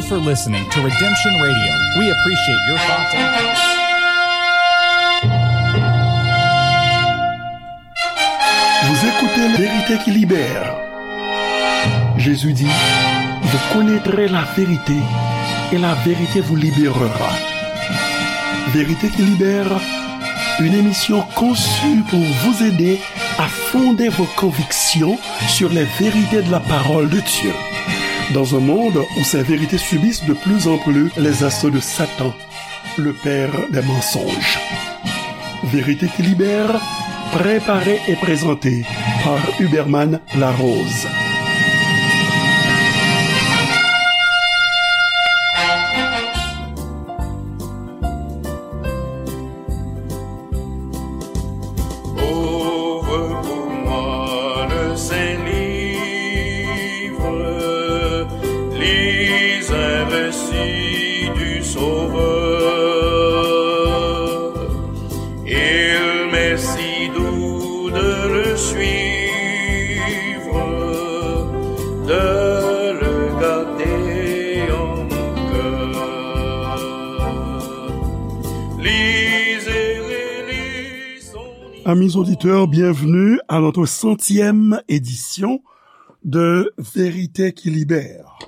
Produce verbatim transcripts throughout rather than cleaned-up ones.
for listening to Redemption Radio. We appreciate your thoughts and Vous écoutez La vérité qui libère. Jésus dit, vous connaîtrez la vérité et la vérité vous libérera. Vérité qui libère, une émission conçue pour vous aider à fonder vos convictions sur les vérités de la parole de Dieu. Dans un monde où ces vérités subissent de plus en plus les assauts de Satan, le père des mensonges. Vérité qui libère, préparée et présentée par Huberman Larose. Ouvre pour moi le saint livre, lis un récit du Sauveur. Il m'est si doux de le suivre, de le garder en mon cœur. Lisez, relisons. Amis auditeurs, bienvenue à notre centième édition de Vérité qui libère.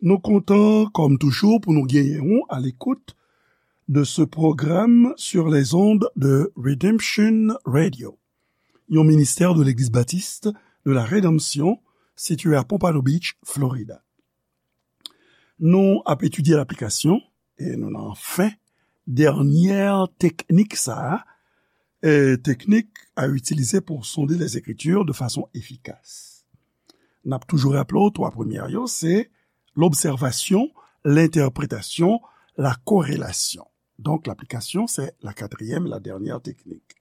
Nou kontan, kòm toujou, pou nou genyen w à l'écoute de ce programme sur les ondes de Redemption Radio, yon ministè de Legliz Batis de la Redanmsyon, sitiye à Pompano Beach, Florida. Nou ap etidye laplikasyon, e nou nan fen dènyè teknik sa a, e teknik à utiliser pour sonder les Écritures de façon efficace. N ap toujou raple w, twa premyè yo, se l'observation, l'interprétation, la corrélation. Donk, laplikasyon, se la katriyèm, la dènyè teknik.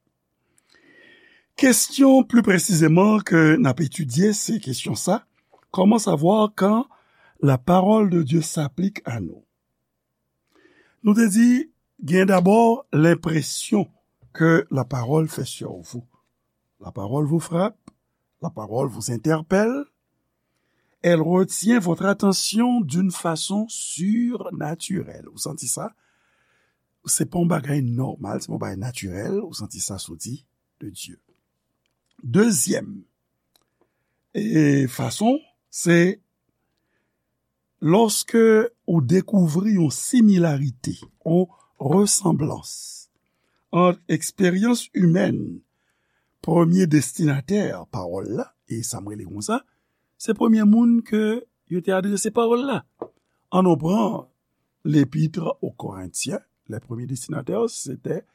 Kestyon pli presizèman ke n ap etidye, se kestyon sa, comment savoir quand la parole de Dieu s'applique à nous? Nou te di, gen dabò lenpresyon ke la parole fait sur vous. La parole vous frappe, la parole vous interpelle, elle retient votre attention d'une façon surnaturelle. Ou santi sa? Se pa yon bagay nòmal, se pa yon bagay natirèl, ou santi sa soti de Dye. Dezyèm, e fason, se lòske ou dekouvri yon similarite, yon resanblans ant eksperyans imèn, premye destinatè pawòl la, e sa m rele konsa, se premye moun ke yo te adrese pawòl la. Ann nou pran L'Épître aux Corinthiens, les premiers destinataires, c'était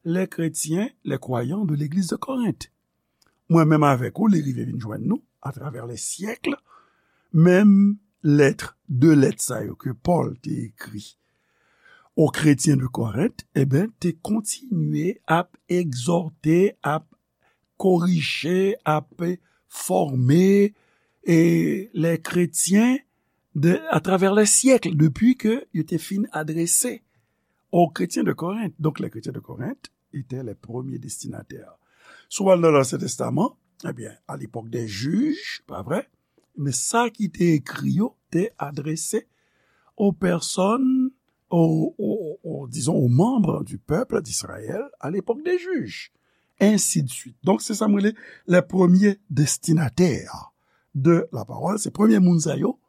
les chrétiens, les croyants de l'église de Corinthe. Mwen menm avèk ou, li rive vin jwenn nou, atravè lè syèk, menm lèt, de lèt sa yo ke Pòl te ekri o kretyen de Korent, e ben, te kontinye ap egzòte, ap korije, ap fòme, e, lè kretyen de, atravè lè syèk, depi ke yo te fin adrese o kretyen de Korent. Donk, lè kretyen de Korent etè lè premye destinatè. Si w al nan Lansyen Testaman, ebyen, à l'époque des juges, pa vre? Men sa ki te ekri yo te adrese aux personnes, aux, aux, aux, disons, aux membres du peuple d'Israël à l'époque des juges. Ainsi de suite. Donk, se sa m rele les premiers destinataires de la parole. Se premye moun sa yo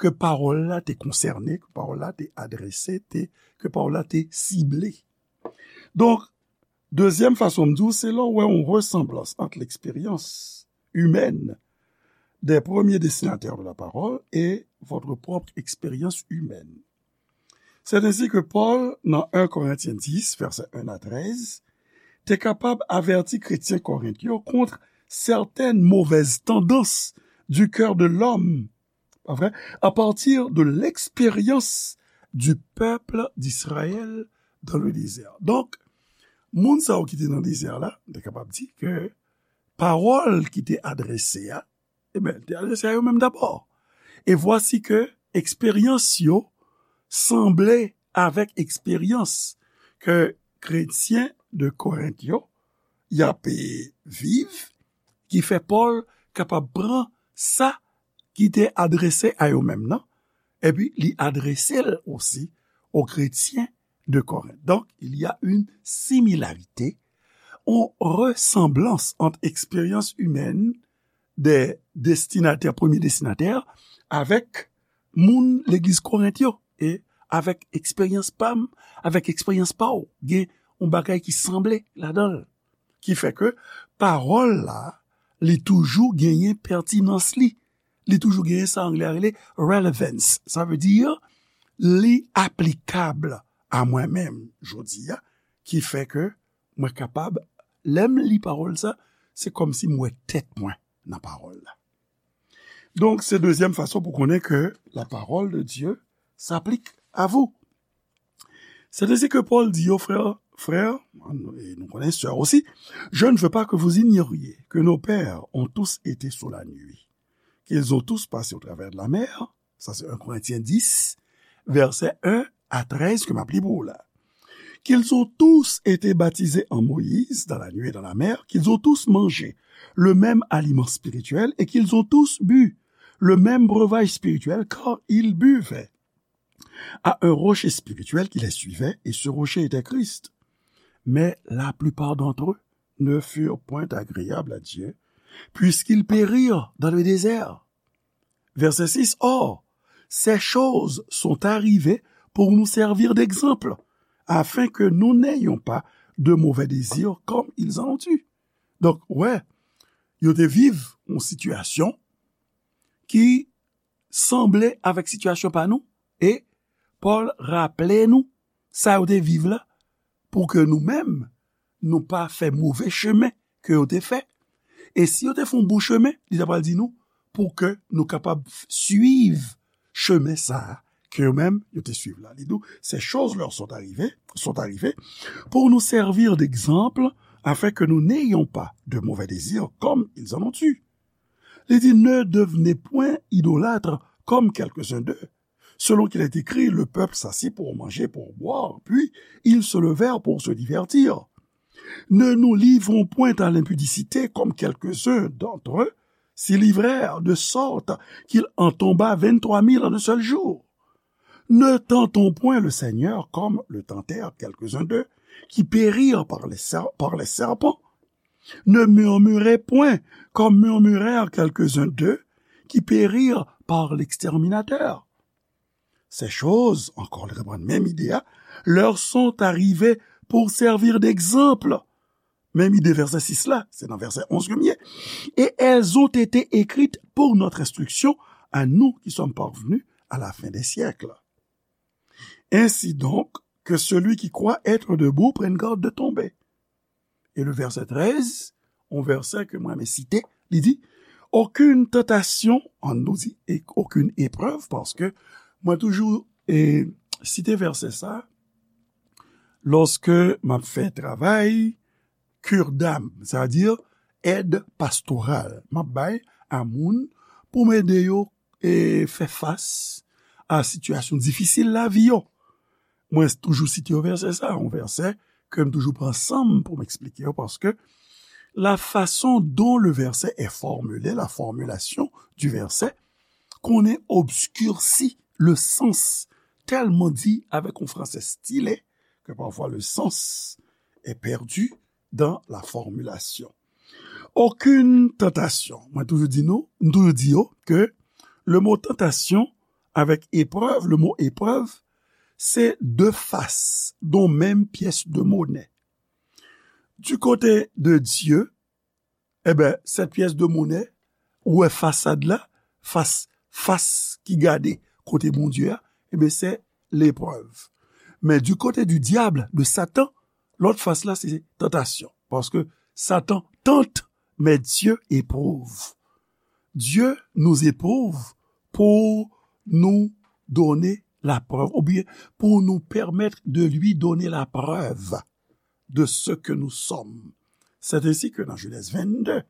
ke pawòl la te konsène, ke pawòl la te adrese, te, ke pawòl la te sible. Donk, dezyèm fason m di w, se lè w wè yon resanblans ant l'expérience humaine des premiers destinataires de la parole et votre propre expérience humaine. C'est ainsi que Paul, dans un Corinthiens dix, versets un à treize, te kapab avèti kretyen Korent yo kont certaines mauvaises tendances du cœur de l'homme, pa vre? À partir de l'expérience du peuple d'Israël dans le désert. Donk, moun sa yo ki te nan dezè la, nou te kapab di ke pawòl ki te adrese a, e ben, te adrese a yo menm dabò. E vwasi ke eksperyans yo sanble avèk eksperyans ke kretyen de Korent yo y ap, e, viv, ki fè Pòl kapab pran sa ki te adrese a yo menm nan, epi li adrese l osi aux chrétiens de Corinthe. Donc, il y a une similarité, une ressemblance entre expérience humaine des destinataires, premiers destinataires, avèk moun legliz Korent yo, e avèk eksperyans pa m, avèk eksperyans pa w. Gen yon bagay ki sanble ladan l. Ki fè ke pawòl la, li toujou genyen pètinans li. Li toujou genyen sa anglè a rele relevance. Sa vle di, li aplikab a mwen menm jodi a, ki fè ke mwen kapab, lè m li pawòl sa, se kòmsi m wè tèt mwen nan pawòl la. Donk, se dezyèm fason pou konnen ke la parole de Dieu s'applique à vous. C'est ainsi que Paul dit aux frères, frères, e nou konnen sè osi, je ne veux pas que vous ignoriez que nos pères ont tous été sous la nuit, qu'ils ont tous passé au travers de la mer, ça c'est un Corinthiens dix, verset un à treize ke m ap li pou ou la. Qu'ils ont tous été baptisés en Moïse, dans la nuit et dans la mer, qu'ils ont tous mangé le même aliment spirituel et qu'ils ont tous bu le même breuvage spirituel, car ils buvaient à un rocher spirituel qui les suivait, et ce rocher était Christ. Mais la plupart d'entre eux ne furent point agréables à Dieu, puisqu'ils périrent dans le désert. Verset six, or, ces choses sont arrivées pour nous servir d'exemple, afin que nous n'ayons pas de mauvais désirs comme ils en ont eu. Donk, wè, yo te viv yon sitiyasyon ki sanble avèk sitiyasyon pa nou, e Pòl raple nou sa yo te viv la, pou ke nou menm, nou pa fè move chemen ke yo te fè. E si yo te fè yon bon chemen, li ta pral di nou, pou ke nou kapab suiv chemen sa a ke yo menm, yo te suiv la. Li di w, ces choses leur sont arrivées, sont arrivées pour nous servir d'exemple, afin que nous n'ayons pas de mauvais désirs comme ils en ont eu. Li di, ne devenez point idolâtres comme quelques-uns d'eux, selon qu'il est écrit, le peuple s'assit pour manger, pour boire, puis ils se levèrent pour se divertir. Ne nous livrons point à l'impudicité comme quelques-uns d'entre eux s'y livrèrent, de sorte qu'il en tomba vingt-trois mille en un seul jour. Ne tentons point le Seigneur comme le tentèrent quelques-uns d'eux, qui périrent par les ser-, par les serpents. Ne murmurez point comme murmurèrent quelques-uns d'eux, qui périrent par l'exterminateur. Ces choses, encore reprann menm ide a, leur sont arrivées pour servir d'exemple. Menm ide vèsè sis la, se nan vèsè onz ke m ye. Et elles ont été écrites pour notre instruction, à nous qui sommes parvenus à la fin des siècles. Ainsi donc, que celui qui croit être debout prenne garde de tomber. Et le verset treize, yon vèsè ke mwen renmen site, li di, aucune tentation, ann nou di, e aucune épreuve, paske mwen toujou e, site vèsè sa, lòske m ap fè travay cure d'âme, sa vle di èd pastoral, m ap bay a moun pou m ede yo e, fè fas a sitiyasyon difisil lavi yo. Mwen toujou site yon vèsè sa, yon vèsè ke m toujou pran san m pou m eksplike yo, paske la façon dont le verset est formulé, la formulation du verset, konnen obskirsi le sens, tèlman di avèk yon fransè stile ke pafwa le sens est perdu dans la formulation. Aucune tentation. Mwen toujou di nou, m toujou di yo ke le mot tentation avèk épreuve, le mot épreuve, se de fas yon menm pyès de monè. Du côté de Dieu, e ben, cette pièce de monnaie, ou wè fasad la, fas, fas ki gade kote Bondye a, e ben, se leprèv. Men du côté du diable, de Satan, lòt fas la, se tantasyon. Paske Satan tente, mais Dieu éprouve. Dieu nous éprouve pour nous donner la preuve, oubyen pour nous permettre de lui donner la preuve de ce que nous sommes. C'est ainsi que dans Genèse vingt-deux,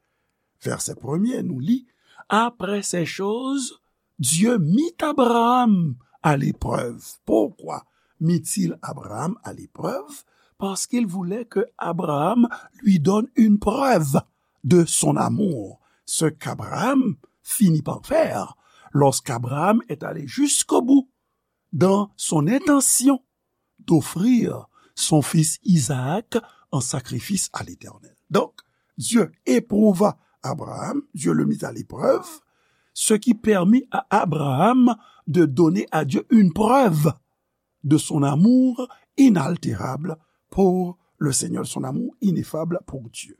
verset premier, nous lit, après ces choses, Dieu mit Abraham à l'épreuve. Pourquoi mit-il Abraham à l'épreuve ? Parce qu'il voulait que Abraham lui donne une preuve de son amour, ce qu'Abraham finit par faire lorsqu'Abraham est allé jusqu'au bout dans son intention d'offrir son fils Isaac en sacrifice à l'Éternel. Donc, Dieu éprouva Abraham, Dieu le mit à l'épreuve, ce qui permit à Abraham de donner à Dieu une preuve de son amour inaltérable pour le Seigneur, son amour ineffable pour Dieu.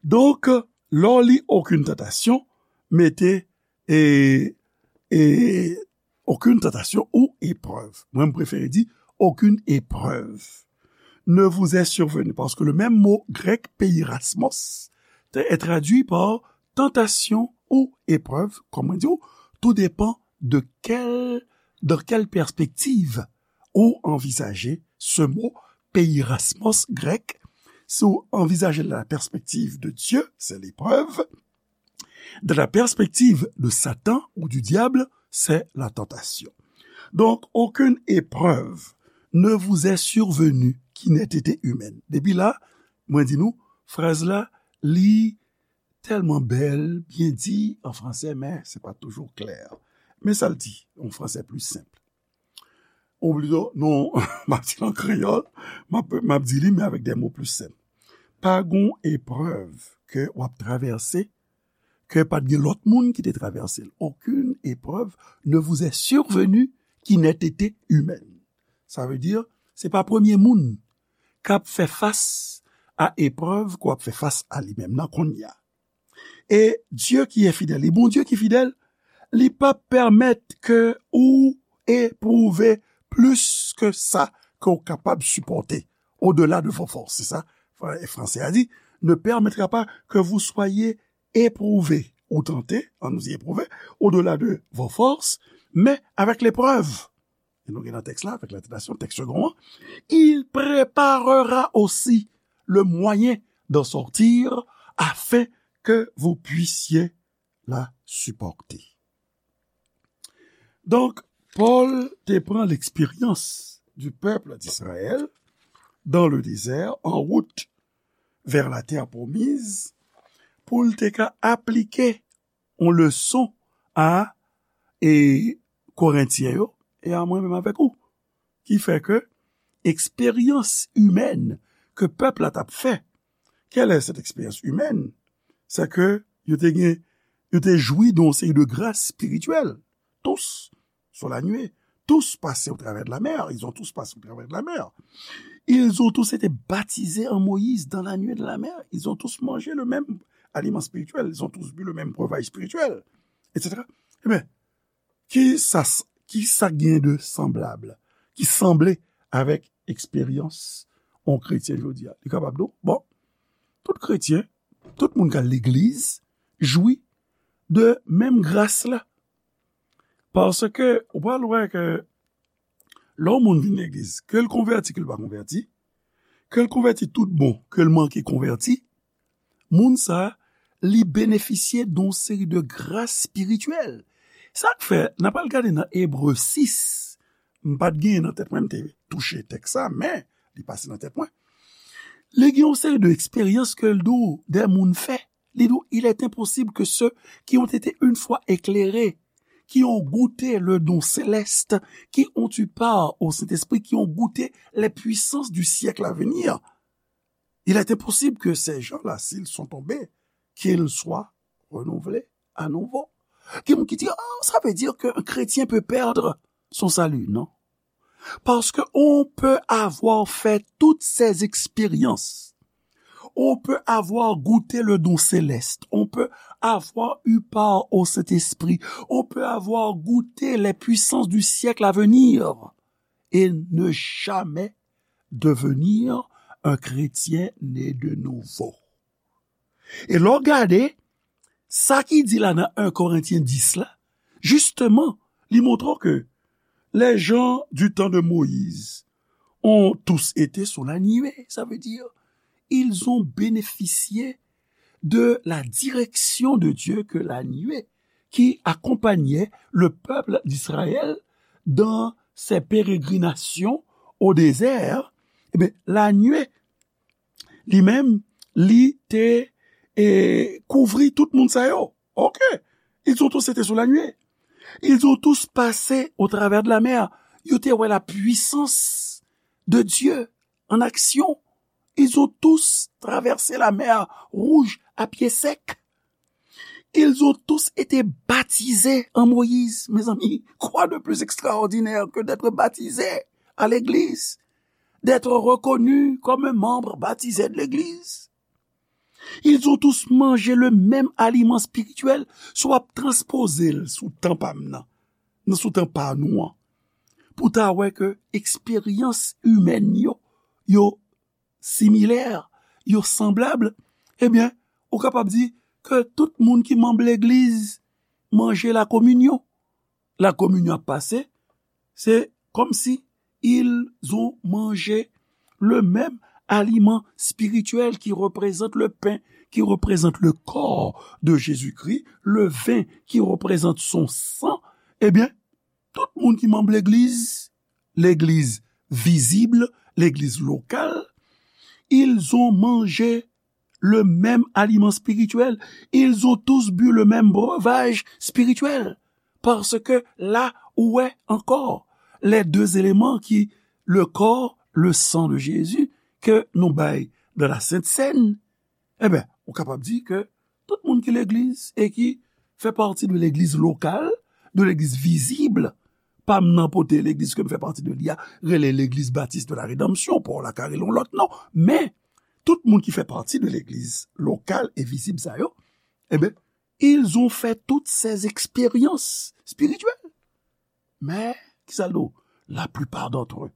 Donk, lè w li okenn tantasyon, mete e, e, okenn tantasyon ou eprèv. Mwen, m prefere di okenn eprèv ne vous est survenu, paske le menm mo grèk peirasmos te est traduit par tantasyon ou eprèv, kòm mwen di w, tou depan de kèl, dans quelle perspective ou anvizaje ce mot peirasmos grèk. Si w anvizaje la perspective de Dieu, c'est l'épreuve. Dans la perspective de Satan ou du diable, c'est la tentation. Donc, aucune épreuve ne vous est survenue qui n'ait été humaine. Depi la, mwen di nou, fraz la, li tèlman bèl, byen di an fransè, men se pa toujou klè. Men sa l di, an fransè pli senp. Ou plito, non, m ap di l an kreyòl, m ap, m ap di li, men avèk de mo pli senp. Pa gon eprèv ke w ap travèse, ke pa t gen lòt moun ki te travèse l. Aucune épreuve ne vous est survenue qui n'ait été humaine. Sa vle di, se pa premye moun k ap fè fas a eprèv ke w ap fè fas a li menm nan kounye a. E Dye ki e fidèl, e Bondye ki fidèl, li p ap pèmèt ke ou epwouve plis ke sa ke w kapab sipòte, au-delà de vos forces. Se sa, fra-, fransè a di, ne permettra pas que vous soyez éprouvés ou tentés, ann nou di éprouvé, au-delà de vos forces, men avèk leprèv. E nou gen nan tèks la, avèk la tantasyon, tèks segon an, il préparera aussi le moyen d'en sortir afin que vous puissiez la supporter. Donk, Pòl te pran l'expérience du peuple d'Israël dans le désert, en route vers la terre promise, pou l te ka aplike yon leson a, e, Korentyen yo, e a mwen menm avèk ou. Ki fè ke eksperyans imèn ke pèp la t ap fè, quelle est cette expérience humaine? C'est que yo te gen, yo te jwi de yon seri de gras espirityèl. Tous sont la nuée. Tous passés au travers de la mer. Ils ont tous passé au travers de la mer. Ils ont tous été baptisés en Moïse dans la nuée de la mer. Ils ont tous mangé le même aliment spirituel. Ils ont tous bu le même breuvage spirituel, et cetera. Ebyen, ki sa, ki sa gen de sanblab, ki sanble avèk eksperyans yon kretyen jodi a? Li kapab di w, bon, tout kretyen, tout moun k al legliz, jwi de menm gras la. Paske ou pral wè ke lè yon moun vin legliz, ke l konvèti, ke l pa konvèti, ke l konvèti tout bon, ke l manke konvèti, moun sa a, li benefisye de yon seri de gras espirityèl. Sa k fè, n ap al gade nan Ebre sis, m pa t genyen nan tèt mwen, m te touche tèks sa, men li pase nan tèt mwen. Li gen yon seri de eksperyans ke l di w de moun fè. Li di w, il est impossible que ceux qui ont été une fois éclairés, qui ont goûté le don céleste, qui ont eu part au Saint-Esprit, qui ont goûté les puissances du siècle à venir, il est impossible que ces gens-là, s'ils sont tombés, qu'ils soient renouvelés à nouveau. Gen moun ki di, oh, ça veut dire qu'un chrétien peut perdre son salut. Non. Parce que on peut avoir fait toutes ces expériences. On peut avoir goûté le don céleste. On peut avoir eu part au Saint-Esprit. On peut avoir goûté les puissances du siècle à venir et ne jamais devenir un chrétien né de nouveau. E lè w gade, sa ki di la nan en Korentyen dis la, jisteman, li montre w ke les gens du temps de Moïse ont tous été sous la nuée. Ça veut dire, ils ont bénéficié de la direction de Dieu que la nuée qui accompagnait le peuple d'Israël dans ses pérégrinations au désert. Ebyen, la nuée, li menm, li te, e, kouvri tout moun sa yo. Ok. Ils ont tous été sous la nuée. Ils ont tous passé au travers de la mer. Yo te wè la puissance de Dieu en action. Ils ont tous traversé la mer Rouge à pied sec. Ils ont tous été baptisés en Moïse. Mes amis, quoi de plus extraordinaire que d'être baptisé à l'église, d'être reconnu comme un membre baptisé de l'église? Ils ont tous mangé le même aliment spirituel. Si w ap transpoze l sou tan pa m nan, nan sou tan pa nou an, pou ta wè ke eksperyans imèn yo, yo similè, yo sanblab, ebyen, ou kapab di ke tout moun ki manm legliz manje lakominyon. Lakominyon ap pase, se comme si ils ont mangé le même aliment spirituel qui représente le pain, qui représente le corps de Jésus-Christ, le vin qui représente son sang. Ebyen, tout moun ki manm legliz, legliz vizib, legliz lokal, ils ont mangé le même aliment spirituel. Ils ont tous bu le même breuvage spirituel. Parce que là, ou wè ankò les deux éléments qui, le corps, le sang de Jésus, ke nou bay dans la Sainte Seine, ebyen, ou kapab di ke tout moun ki legliz e ki fè pati de legliz lokal, de legliz vizib, pa m nan pote legliz ke m fè pati de li a, rele Legliz Batis de la Redanmsyon, pa w la ka rele yon lòt non, men tout moun ki fè pati de legliz lokal e vizib sa yo, ebyen, ils ont fait toutes ces expériences spirituelles. Mais, kisa l di w? La plupart d'entre eux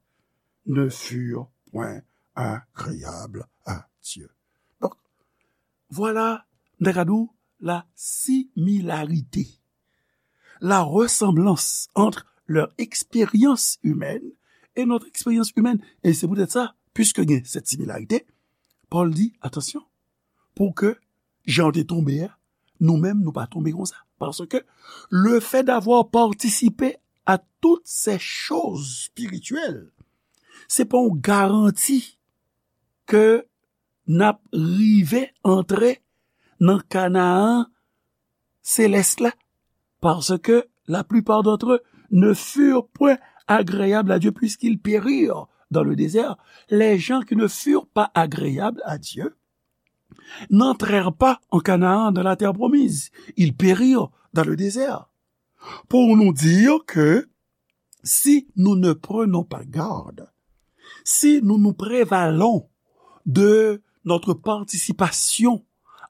ne furent point agréables à Dieu. Donc, voilà, m ta ka di w, la similarité, la ressemblance entre leur expérience humaine et notre expérience humaine. Et c'est peut-être ça, puisque il y a cette similarité, Paul dit, attention, pou ke jan yo te tonbe a, nou menm, nou pa tonbe konsa. Parce que le fait d'avoir participé à toutes ces choses spirituelles, se pa yon garanti ke n ap rive antre nan Kanaan selès la. Parce que la plupart d'entre eux ne furent point agréables à Dieu puisqu'ils périrent dans le désert. Les gens qui ne furent pas agréables à Dieu n'entrèrent pas en Canaan, dans la terre promise. Ils périrent dans le désert. Pour nous dire que si nous ne prenons pas garde, si nous nous prévalons de notre participation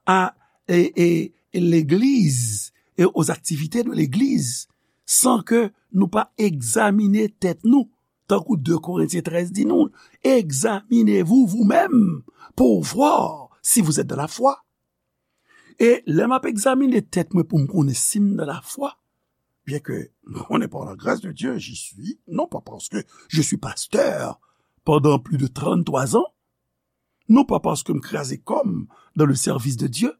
à et, et, et l'Église et aux activités de l'Église, san ke nou pa egzamine tèt nou, tankou de Korentyen trèz di nou, examinez-vous vous-même pour voir si vous êtes dans la foi. E lè m ap egzamine tèt mwen pou m konnen si m nan lafwa, bien que m konnen par la grâce de Dieu, j'y suis, non pas parce que je suis pasteur pendant plus de trente-trois ans, non pas parce que m kraze kò m dans le service de Dieu,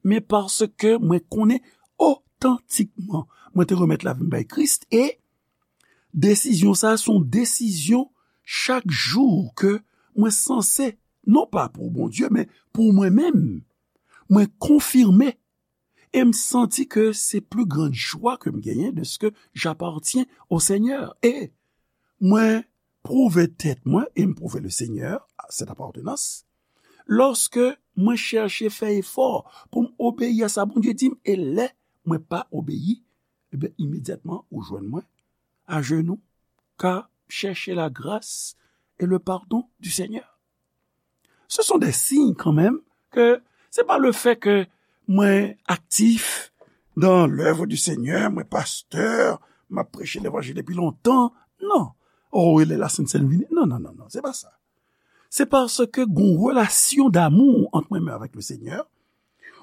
men paske mwen konnen otantikman mwen te remèt lavi m bay Kris e desizyon sa a se yon desizyon chak jou ke mwen sanse, non pa pou Bondye, men pou mwen menm, mwen konfime e m santi ke se plus grande joie ke m genyen de ce que j'appartiens au Seigneur. E mwen pwouve tèt mwen e m pwouve le Seigneur, cette appartenance, lòske mwen chèche fè efò pou m obeyi a sa Bondye di m, e lè mwen pa obeyi, ebyen, imedyatman, ou jwenn mwen ajenou, ka chèche la grâce et le pardon du Seigneur. Ce sont des signes quand même que c'est pas le fait que mwen actif dans l'œuvre du Seigneur, mwen pastè, m ap preche levanjil depi lontan. Non. Oh, e lè la Sent Sèn vini. Non, non, non, non, se pa sa. Se paske gon relasyon damou ant mwen menm avèk le Seigneur,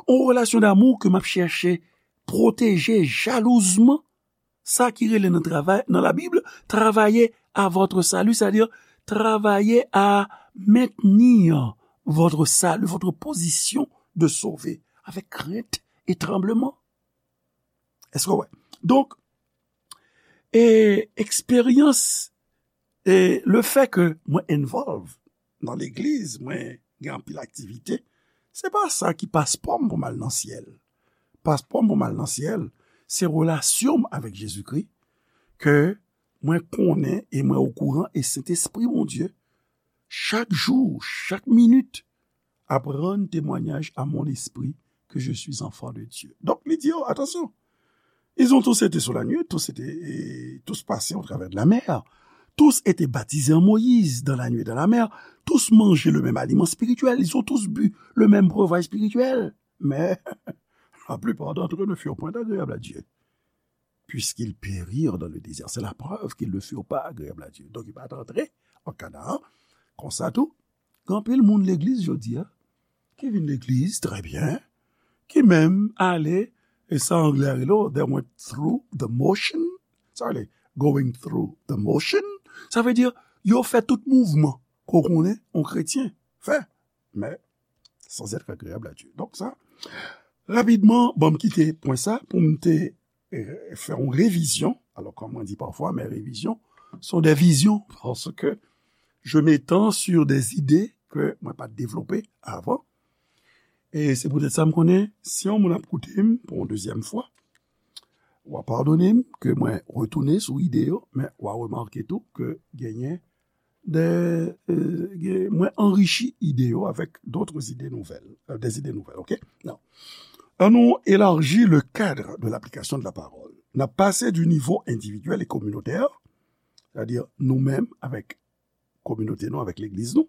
yon relasyon damou ke m ap chèche pwoteje jalouzman, sa ki rele nan travay, nan Labib, travailler à votre salut, c'est-à-dire travailler à maintenir votre salut, votre position de sauvé, avec crainte et tremblement. Èske w wè? Donk, e eksperyans, e le fè ke mwen involve nan legliz, mwen gen anpil aktivite, se pa sa ki paspò m pou m al nan syèl. Paspò m pou m al nan syèl, se relasyon m avèk Jezikri ke mwen konnen e mwen okouran, e Sentespri Bondye, chak jou, chak minit, ap rann temwanyaj à mon esprit que je suis enfant de Dieu. Donk, li di yo, atansyon, ils ont tous été sous la nuée, tous étaient, et tous passés au travers de la mer, tous étaient baptisés en Moïse, dans la nuée et dans la mer, tous mangeaient le même aliment spirituel, ils ont tous bu le même breuvage spirituel. Mais la plupart d'entre eux ne furent point agréables à Dieu, puisqu'ils périrent dans le désert. C'est la preuve qu'ils ne furent pas agréables à Dieu. Donk, yo pa t antre an Kanaan. Konsa tou, gen anpil moun legliz jodi a, ki vin legliz, trè byen, ki menm ale, e sa anglè a rele, they went through the motion. Sa vle, going through the motion, sa vle di, yo fè tout mouvman ke w konnen yon kretyen fè, men sans être agréable à Dieu. Donk sa, rapidman, ban m kite pwen sa pou m te, eh, fè yon revizyon. Alors, comme on dit parfois, mes révisions sont des visions, parce que je m'étends sur des idées que mwen pa t devlope avan. E se poutèt sa m konnen, si yon moun ap koute m pou yon dezyèm fwa, w a padone m ke mwen retounen sou ide yo, men w a remake tou ke genyen de, euh, gen, mwen anrichi ide yo avec d'autres idées nouvelles, euh, des idées nouvelles, ok? Non. An nou élargi le cadre de l'application de la parole. N ap pase du niveau individuel et communautaire, c'est-à-dire nou menm avèk kominote nou, avèk legliz nou,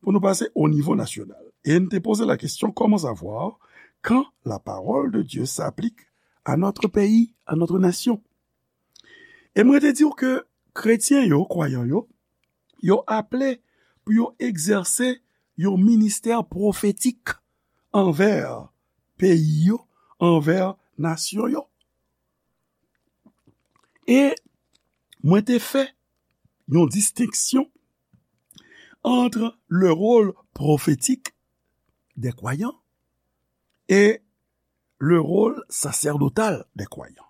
pou nou pase au niveau national. Et n te poze la question, comment savoir quand la parole de Dieu s'applique à notre pays, à notre nation? E mwen te di w ke kretyen yo, kwayan yo, yo aple pou yo egzèse yon ministè pwofetik anvè peyi yo, anvè nasyon yo. E mwen te fè yon distenksyon entre le rôle prophétique des croyants et le rôle sacerdotal des croyants.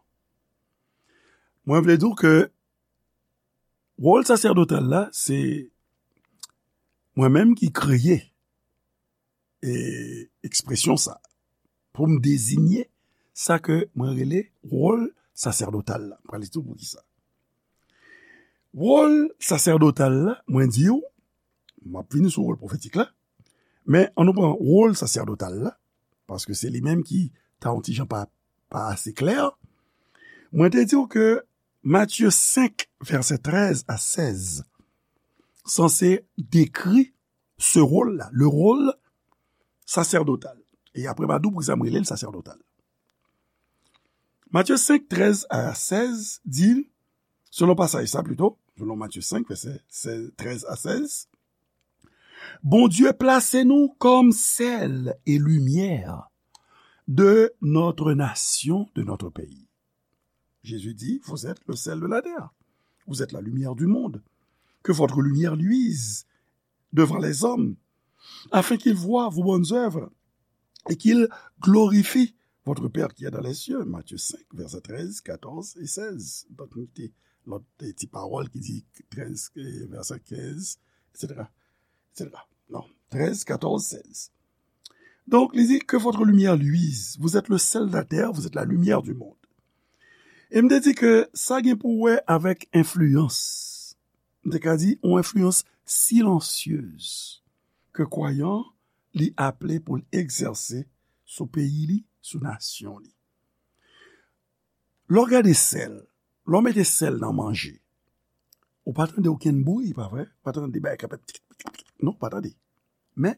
Mwen vle di w ke wòl saserdotal la, se mwen menm ki kreye, e, ekspresyon sa pou m deziye sa ke mwen rele wòl saserdotal la. Mwen pral di w poukisa. Wòl saserdotal la, mwen di w, m ap vini sou wòl pwofetik la, men ann nou pran wòl saserdotal la, paske se li menm ki ta yon ti jan pa, pa ase klè. Mwen te di w ke Matye senk, vèsè trèz a sèz, sanse dekri ce rôle-là, le rôle sacerdotal. E apre, m a di w poukisa m rele l saserdotal. Matye senk, trèz a sèz di, selon pasaj sa pito, selon Matye senk, vèsè sèz, trèz a sèz, Bondye plase nou comme sel et lumière de notre nation, de notre pays. Jésus dit, vous êtes le sel de la terre. Vous êtes la lumière du monde. Que votre lumière luise devant les hommes, afin qu'ils voient vos bonnes œuvres et qu'ils glorifient votre Père qui est dans les cieux. Matthieu cinq, versets treize, quatorze et seize. Donk, nou te, lòt ti pawòl ki di trèz, eh, vèsè kenz, et cetera, et cetera. Non, trèz, katòz, sèz. Donk, li di, que votre lumière luise. Vous êtes le sel de la terre, vous êtes la lumière du monde. E m te di ke sa gen pou wè avèk enfliyans. M te ka di, yon enfliyans silansyez ke kwayan li aple pou l egzèse sou peyi li, sou nasyon li. Lè w gade sèl, lè w mete sèl nan manje, ou pa tande okenn bri, pa vre? Pa tande bagay k ap fè tik, tik, tik, non, pa tande. Men,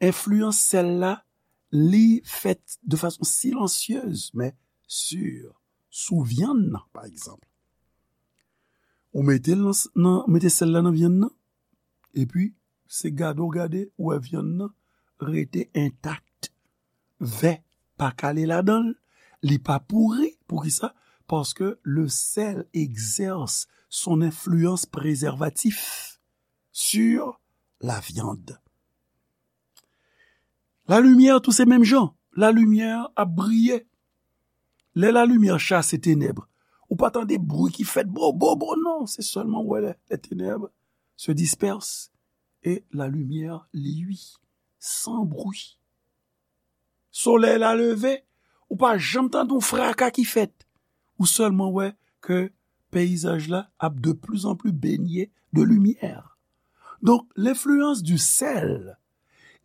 enfliyans sèl la, li fèt de fason silansyez, men si, sou vyann nan, pa egzanp. Ou mete l nan, nan, mete sèl la nan vyann nan, epi se gade w gade, ou wè vyann nan rete entak. Vè pa kale ladan l, li pa pouri. Poukisa? Paske le sel exerce son influence préservatif sur la viande. Lalimyè tou se menm jan. Lalimyè ap briye. Lè lalimyè chase tenèb, ou pa tande bri ki fèt bo, bo, bo, non. Se sèlman ou wè les, les ténèbres se dispersent et la lumière luit sans bruit. Solèy la leve, Ou pa janm tande yon fraka ki fèt. Ou sèlman wè ke peyizaj la ap de plus en plus baignés de lumière. Donc, l'influence du sel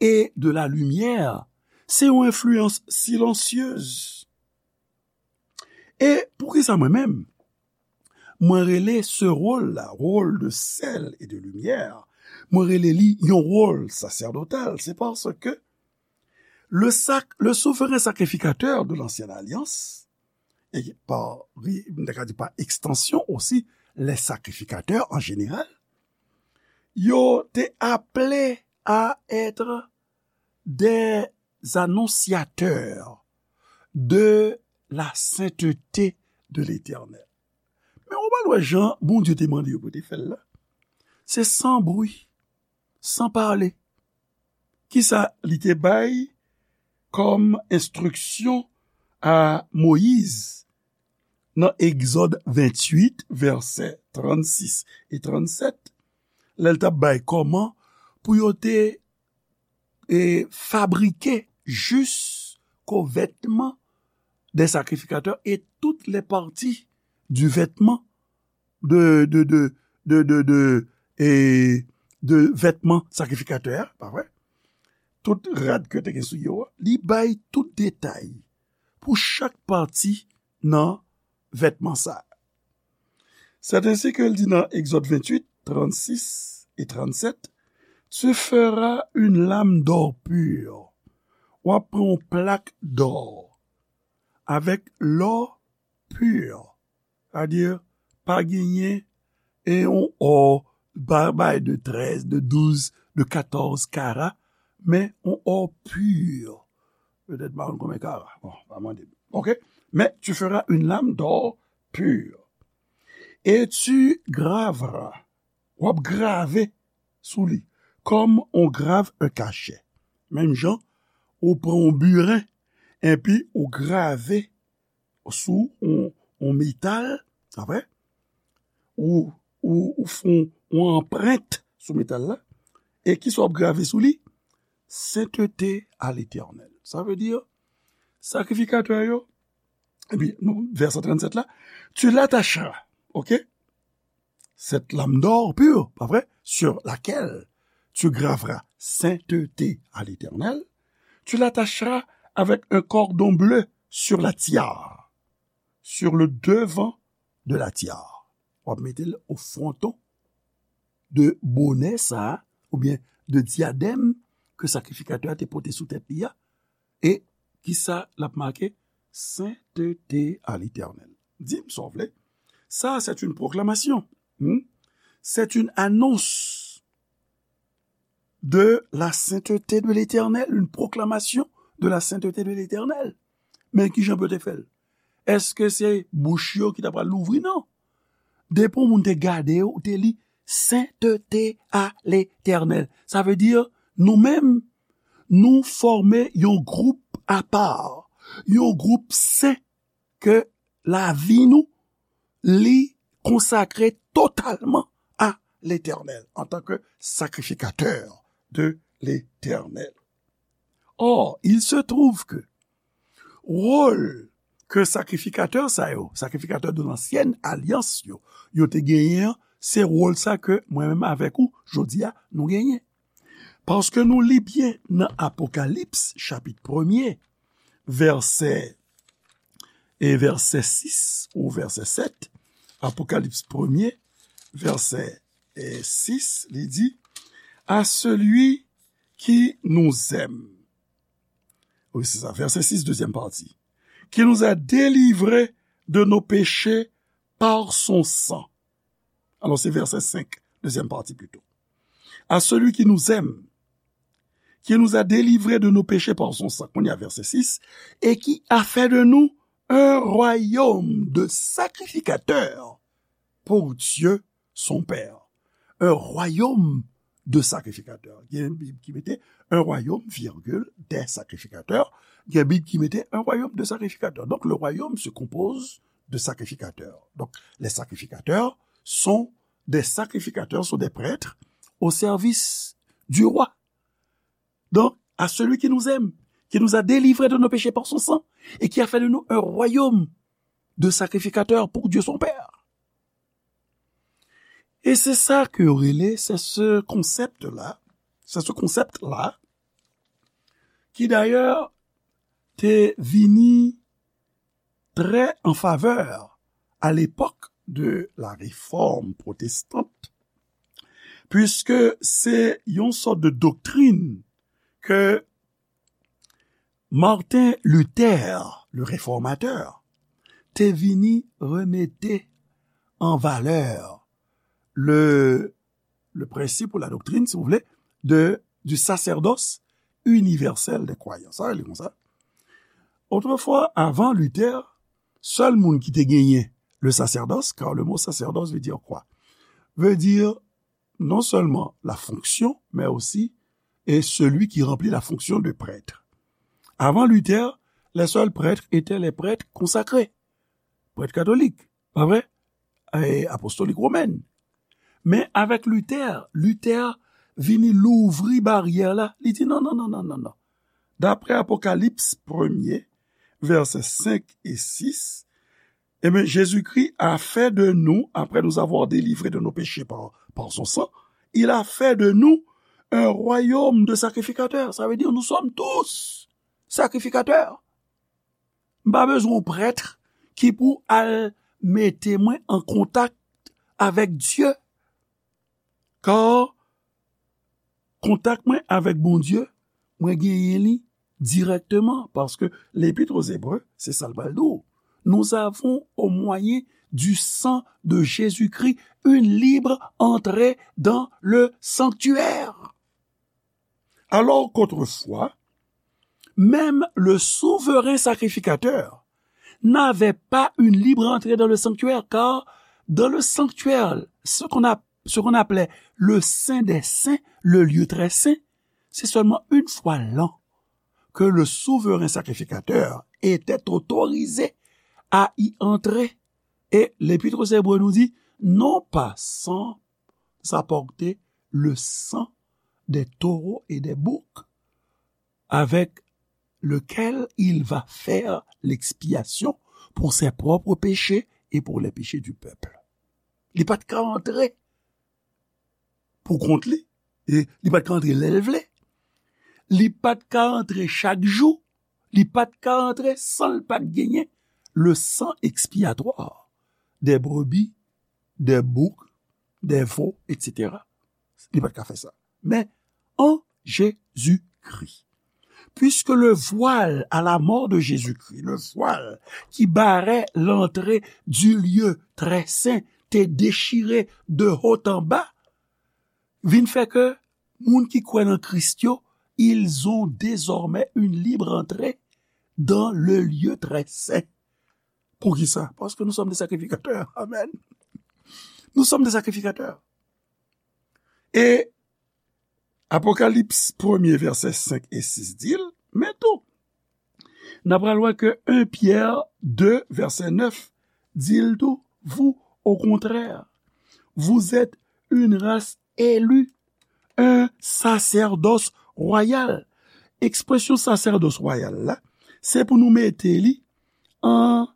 et de la lumière, se yon enfliyans silansyez. E poukisa mwen menm, mwen rele se wòl la, rôle de sel et de lumière, mwen rele li yon wòl sacerdotal, c'est parce que le sac, le souverain sacrificateur de l'ancienne alliance, et par, m ta ka di par extension aussi, les sacrificateurs en général, yo te appelés à être des annonciateurs de la sainteté de l'Éternel. Men ou pa wè jan Bondye te mande yo pou te fè l la. Se san bri, san pale. Kisa li te bay kòm enstriksyon a Moyiz nan Egzòd venntuit, vèsè trannsis e trannsèt, lè l t ap bay kòman pou yo te e, fabriquer jusqu'aux vêtements des sacrificateurs et toutes les parties du vêtement de, de, de, de, de, de, e, de vêtement sacrificateur, pa vre? Tout rad ke te gen sou yo a, li bay tout detay pou chak pati nan vètman sa. C'est ainsi que l di nan Egzòd venntuit, trannsis e trannsèt, tu feras une lame d'or pur. W ap pran yon plak dò avèk lò pur. Sètadi, pa genyen e yon ò ba-, bay de trèz, de douz, de katòz kara, men yon ò pur. Petèt pa konn konbyen kara. Bon, pa mande m. OK? Mais tu feras une lame d'or pur. Et tu graveras. W ap grave sou li. Comme on grave un cachet. Menm jan, ou pran yon biren, epi ou grave sou yon, yon metal, apre, ou, ou, ou fè yon, yon anprent sou metal la, e kisa w ap grave sou li? Sainteté à l'Éternel. Sa vle di, sakrifikatè yo, epi, nou, vèsè trannsèt la, tu l'attacheras, OK? Cette lame d'or pur, pa vre, sur laquelle tu graveras sainteté à l'Éternel, tu l'attacheras avec un cordon bleu sur la tiare, sur le devant de la tiare. W ap mete l o fwonton de bonè sa a, oubyen de dyadèm ke sakrifikatè a te pote sou tèt li a. E kisa l ap make? Sainteté à l'Éternel. Di m sa w vle. Ça, c'est une proclamation. Hmm? C'est une annonce de la sainteté de l'Éternel, une proclamation de la sainteté de l'Éternel. Men kijan pou yo te fè l? Èske se bouch yo ki ta pral louvri? Non. Depi yon moun te gade yo, ou te li sainteté à l'Éternel. Sa vle di, nou menm, nou fòme yon gwoup apa, yon gwoup sen ke lavi nou, li konsakre totalman a Letènèl antanke sakrifikatè de Letènèl. Or, il se trouve que wòl ke sakrifikatè sa yo, sakrifikatè de lansyèn alyans yo, yo te genyen an, se wòl sa ke mwen menm avèk ou, jodi a, nou genyen. Paske nou li byen nan Apokalips, chapit premye, vèsè, e vèsè sis ou vèsè sèt, Apokalips premye, vèsè, e sis, li di, à celui qui nous aime. Wi, se sa, vèsè sis, dezyèm pati. Qui nous a délivrés de nos péchés par son sang. Alò, se vèsè senk, dezyèm pati plito. À celui qui nous aime, qui nous a délivrés de nos péchés par son sang, kounye a vèsè sis, et qui a fait de nous un royaume de sacrificateurs pour Dieu son Père. Un royaume de sacrificateurs. Gen Bib ki mete un royaume, virgule, des sacrificateurs. Gen Bib ki mete un royaume de sacrificateurs. Donc, le royaume se compose de sacrificateurs. Donc, les sacrificateurs sont des sacrificateurs, sont des prêtres au service du roi. Donc, à celui qui nous aime, qui nous a délivrés de nos péchés par son sang et qui a fait de nous un royaume de sacrificateurs pour Dieu son Père. E se sa ke yo rele, se se konsèp la, se se konsèp la, ki dayè te vini très en faveur à l'époque de la réforme protestante, puisque c'est une sorte de doctrine que Martin Luther, le réformateur, te vini remete an valè le, le principe ou la doctrine, si vous voulez, de, du sacerdoce universel des croyants. Sa rele konsa. Autrefois, avant Luther, sèl moun ki te genyen le sacerdoce, car le mot sacerdoce veut dire quoi? Veut dire non seulement la fonction, mais aussi et celui qui remplit la fonction de prêtre. Avant Luther, les seuls prêtres étaient les prêtres consacrés, prêtres catholiques, pas vrai? Et apostoliques romains. Men avèk Luther, Luther vini louvri baryè la. Li di non, non, non, non, non, non. D'après Apocalypse premier, versets cinq et six, eh bien, Jésus-Christ a fait de nous, après nous avoir délivrés de nos péchés par, par son sang, il a fait de nous un royaume de sacrificateurs. Ça veut dire, nous sommes tous sacrificateurs. M pa bezwen yon prèt ki pou al mete mwen an kontak avèk Dye. Kar kontak mwen avèk Bondye, mwen genyen li dirèkteman, paske Lépître aux Hébreux, se sa l pral di w. Nous avons, au moyen du sang de Jésus-Christ, une libre entrée dans le sanctuaire. Alors qu'autrefois, même le souverain sacrificateur n'avait pas une libre entrée dans le sanctuaire, car dans le sanctuaire, ce qu'on a, ce qu'on appelait le Saint des Saints, le lieu très saint, c'est seulement une fois l'an que le souverain sacrificateur était autorisé à y entrer. Et l'Épître aux Hébreux nous dit, non pas sans apporter le sang des taureaux et des boucs, avec lequel il va faire l'expiation pour ses propres péchés et pour les péchés du peuple. Li pa t ka antre pou kont li, e li pa t ka antre lè l vle. Li pa t ka antre chak jou, li pa t ka antre san l pa t genyen le sang expiatoire des brebis, des boucs, des veaux, et cetera. Li pa t ka fè sa. Men, en Jésus-Christ. Puisque le voile à la mort de Jésus-Christ, le voile qui barrait l'entrée du lieu très saint, te déchiré de haut en bas, vin fè ke moun ki kwè nan Kris yo, ils ont désormais une libre entrée dans le lieu très saint. Poukisa? Parce que nous sommes des sacrificateurs. Amen. Nous sommes des sacrificateurs. E Apokalips premye, vèsè senk e sis di l, men tou, n a pral wè ke en Pyè de, vèsè nèf, di l tou, vous, au contraire, vous êtes une race élue, un sacerdoce royal. Ekspresyon sacerdoce royal la, se pou nou mete li an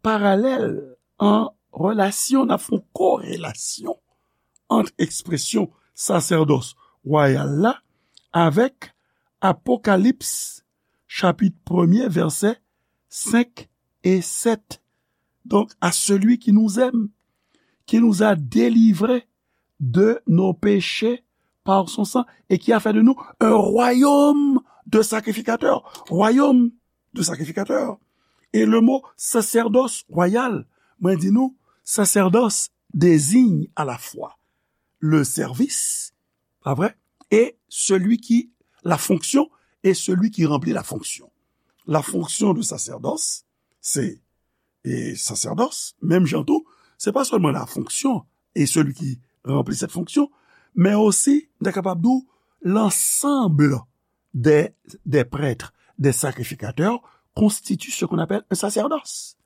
paralèl, an relasyon, n ap fè yon korelasyon ant ekspresyon sacerdoce royal la avèk Apokalips chapit premye, vèsè senk e sèt. Donc, à celui qui nous aime, qui nous a délivrés de nos péchés par son sang et qui a fait de nous un royaume de sacrificateurs. Royaume de sacrificateurs. Et le mot sacerdoce royal, mwen di nou, sacerdoce désigne à la fois le service, pas vrai, et celui qui, la fonction, et celui qui remplit la fonction. La fonction de sacerdoce, c'est, et sacerdoce, menm jan tou, se pa sèlman la fonction et celui qui remplit cette fonction, men osi, nou ta kapab di w, l'ensemble des, des prêtres, des sacrificateurs, constitue ce qu'on appelle un sacerdoce.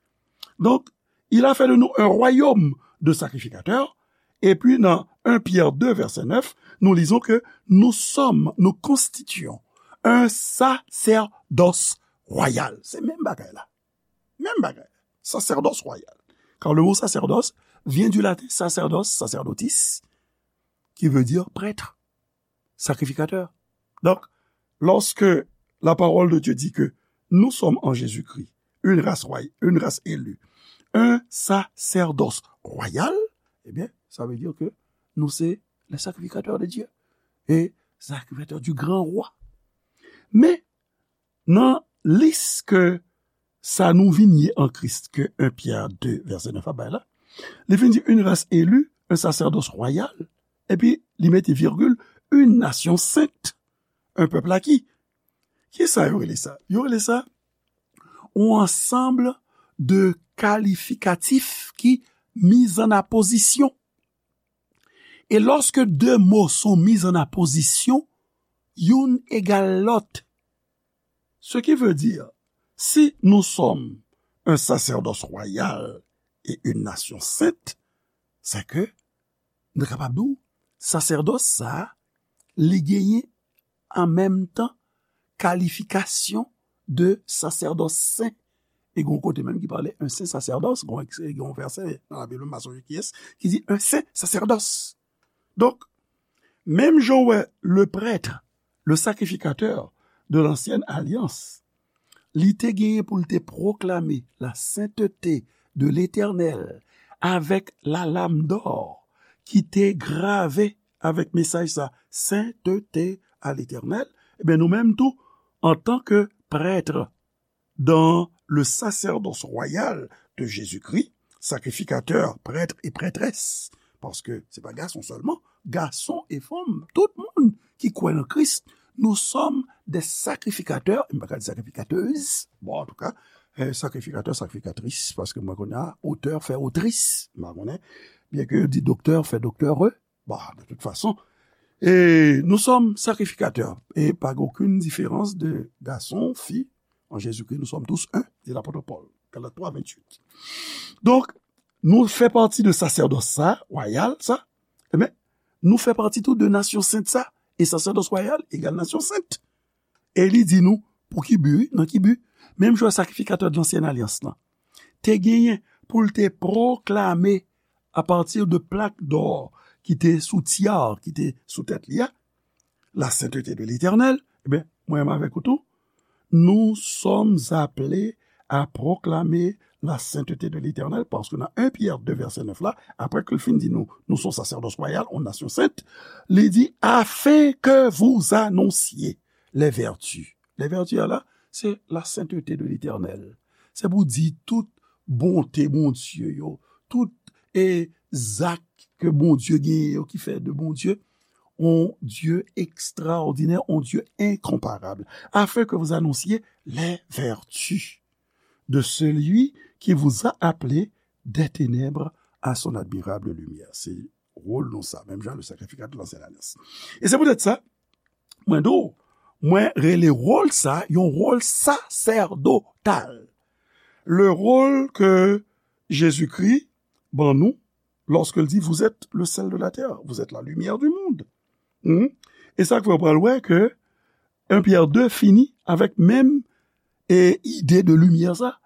Donc, il a fait de nous un royaume de sacrificateurs. Et puis, dans un Pierre deux, verset neuf, nous lisons que nous sommes, nous constituons Un sacerdoce royal. Se menm bagay la. Menm bagay. Sacerdoce royal. Car le mot sacerdoce vient du latin sacerdos, sacerdotis, qui veut dire prêtre, sacrificateur. Donc, lorsque la parole de Dieu dit que nous sommes en Jésus-Christ une race royale, une race élue, un sacerdoce royal, eh bien, ça veut dire que nous c'est les sacrificateurs de Dieu et sacrificateurs du grand roi. Men, nan lis ke sa nou vin ye an Kris ke un Pyè de vèsè nèf la bay la, li vin di une race élue, un sacerdoce royal, epi li mete virgil, une nation sainte, un peuple acquis. Kisa yo rele sa? Yo rele sa un ensemble de kalifikatif ki mis en apposition. E lòske de mo sont mis en apposition, youn egal lòt. Ce qui veut dire, si nous sommes un sacerdoce royal et une nation sainte, c'est que nou kapab di w, sasèdòs sa a, li genyen an menm tan kalifikasyon de sasèdòs sen. E gen yon kote menm ki pale un saint sacerdoce, gen yon, gen yon vèsè nan Labib, m pa sonje kiyès, ki di un saint sacerdoce. Donk, menm jan w wè le prêtre, le sacrificateur de l'ancienne alliance, li te genyen pou l te pwoklame la sainteté de l'Éternel avec la lame d'or ki te grave avèk mesaj sa, sainteté à l'Éternel, ebyen nou menm tou, antanke prèt dans le sacerdoce royal de Jésus-Christ, sacrificateurs, prêtres et prêtresses, paske se pa gason sèlman, gason e fanm, tout moun ki kwè nan Kris, nous sommes des sacrificateurs, m pa ka di sacrificateuses, bon, antouka, eh, sacrificateurs, sacrificatrices, paske mwen konnen otè fè otris, m pa konnen, byen ke yo di doktè fè doktère, Bon, de toute façon, et nous sommes sacrificateurs, et pas aucune différence de garçon, fille, en Jésus-Christ, nous sommes tous un, dit l'apôtre Paul, Galates trois, vingt-huit. Donk, nou fè pati de sasèdòs sa, wayal sa, men nou fè pati tou de nasyon sent sa, e sasèdòs wayal egal nasyon sent. E li di nou, pou ki bi, wi, nan ki bi? Menm jan sakrifikatè de lansyen alyans lan te genyen pou l te pwoklame apati de plak dò ki te sou tyar, ki te sou tèt li a, la sainteté de l'Éternel, ebyen, mwen menm avèk ou tou, nous sommes appelés à proclamer la sainteté de l'Éternel, paske nan un Pyè de vèsè nèf la, apre ke l fin di nou, nous sommes sacerdoce royal, une nation sainte, li di, afin que vous annonciez les vertus. Les vertus a la, se la sainteté de l'Éternel. Se pou di tout bonte Bondye yo, tout e zak ke Bondye genyen yo ki fè de Bondye un Dieu extraordinaire, un Dieu incomparable, afin que vous annonciez les vertus de celui qui vous a appelé des ténèbres à son admirable lumière. Se wòl nou sa, menm jan le sacrificateur de l'ancienne alliance. E se poutèt sa, mwen di w, mwen rele wòl sa yon wòl sasèdotal. Le rôle que Jésus-Christ ban nou, lorsque il dit, vous êtes le sel de la terre, vous êtes la lumière du monde. Hmm? E sa k fè w pral wè ke un Pyè de fini avèk menm e ide de limyè sa,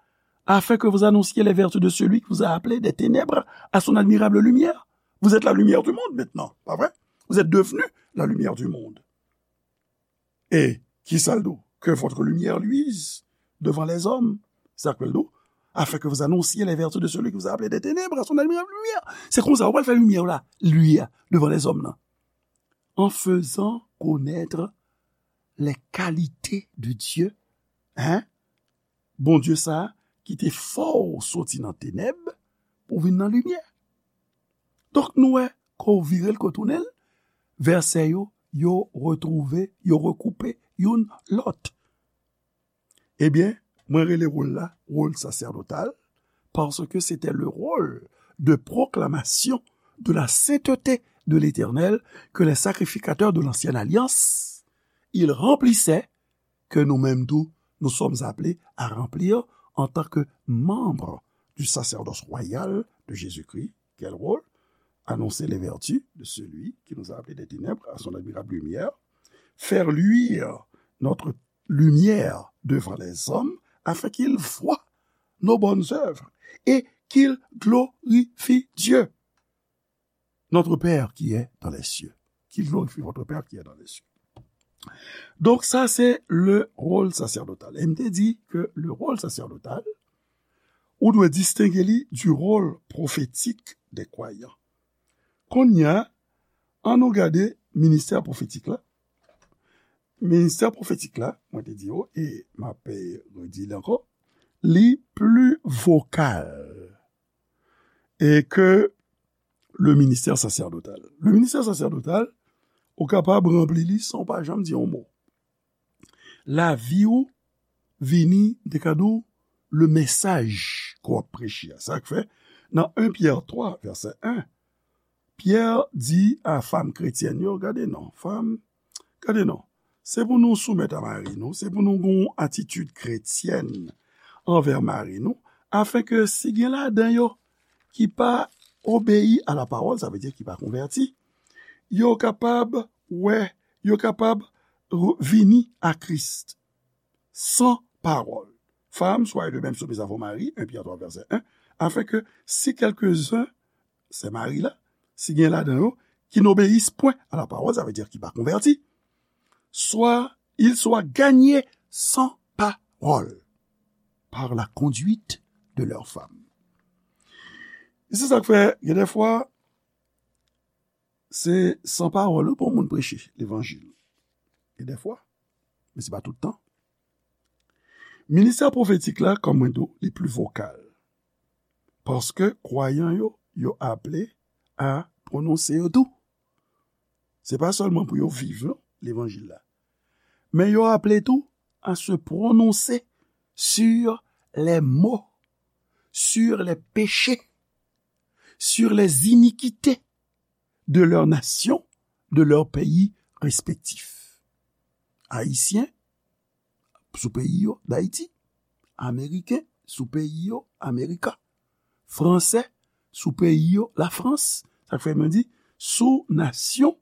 afin que vous annonciez les vertus de celui qui vous a appelé des ténèbres à son admirable lumière. Vous êtes la lumière du monde maintenant, pas vrai? Vous êtes devenu la lumière du monde. Et qui ça le dit? Que votre lumière luise devant les hommes. Sa k fè l di w, afin que vous annonciez les vertus de celui qui vous a appelé des ténèbres à son admirable lumière. Se konsa ou pral fè limyè w la luire devant les hommes nan. En faisant connaître les qualités de Dieu. Hein? Bondye sa a ki te fè w soti nan tenèb pou w vin nan limyè. Donk, nou wè, ke w vire l, ke w tounen l, vèsè yo, yo retwouve, yo rekoupe youn lòt. Ebyen, mwen rele wòl la wòl sasèdotal, parce que c'était le rôle de proclamation de la sainteté de l'Éternel que les sacrificateurs de l'ancienne alliance, ils remplissaient, que nous-mêmes tout, nous sommes appelés à remplir en tant que membres du sacerdoce royal de Jésus-Christ. Quel rôle? Annoncer les vertus de celui qui nous a appelés des ténèbres à son admirable lumière, faire luire notre lumière devant les hommes, afin qu'ils voient nos bonnes œuvres et qu'ils glorifient Dieu, notre Père qui est dans les cieux. Qu'ils glorifient votre Père qui est dans les cieux. Donk, sa se le rôle sacerdotal. E m te di ke le rôle sacerdotal, ou dwe distenge li du rôle prophétique des croyants. Kounye a, ann nou gade ministè pwofetik la. Ministè pwofetik la, mwen te di yo, e m ap, eh, redi li ankò, li pli vokal e ke le ministè sacerdotal. Le ministè sacerdotal, ou kapab ranpli li san w pa janm di yon mo. Lavi w vini, m te ka di w, le mesaj ke w ap preche a. Sa k fè, nan en Pyè twa, vèsè en, Pyè di a fanm kretyèn yo, gade non, fanm, gade non, se pou nou soumèt a mari nou, se pou nou gen yon atitid kretyèn anvè mari nou, afenke si gen ladan yo ki pa obeyi a la pawòl, sa vle di ki pa konvèti, yo kapab wè, yo kapab re- vini a Kris san pawòl. Femmes, soyez de même soumises à vos maris, en Pyè twa, vèsè en, afenke si quelques-uns, se mari la, si gen ladan yo, qui n'obéissent point à la parole, sa vle di ki pa konvèti, soit ils soient gagnés sans parole par la conduite de leurs femmes. E se sa k fè, gen de fwa, se san pawòl wi pou yon moun preche levanjil. Gen de fwa, men se pa tout tan. Ministè pwofetik la, kòm mwen di w, li pli vokal. Paske kwayan yo, yo aple a pwononse yo tou. Se pa sèlman pou yo viv, non, levanjil la. Men yo aple tou à se prononcer sur les maux, sur les péchés, sur les iniquités de leur nation, de leur pays respectif. Ayisyen, sou peyi yo, Dayiti, Ameriken, sou peyi yo, Amerika, Fransè, sou peyi yo, Lafrans, sa k fè mwen di, sou nasyon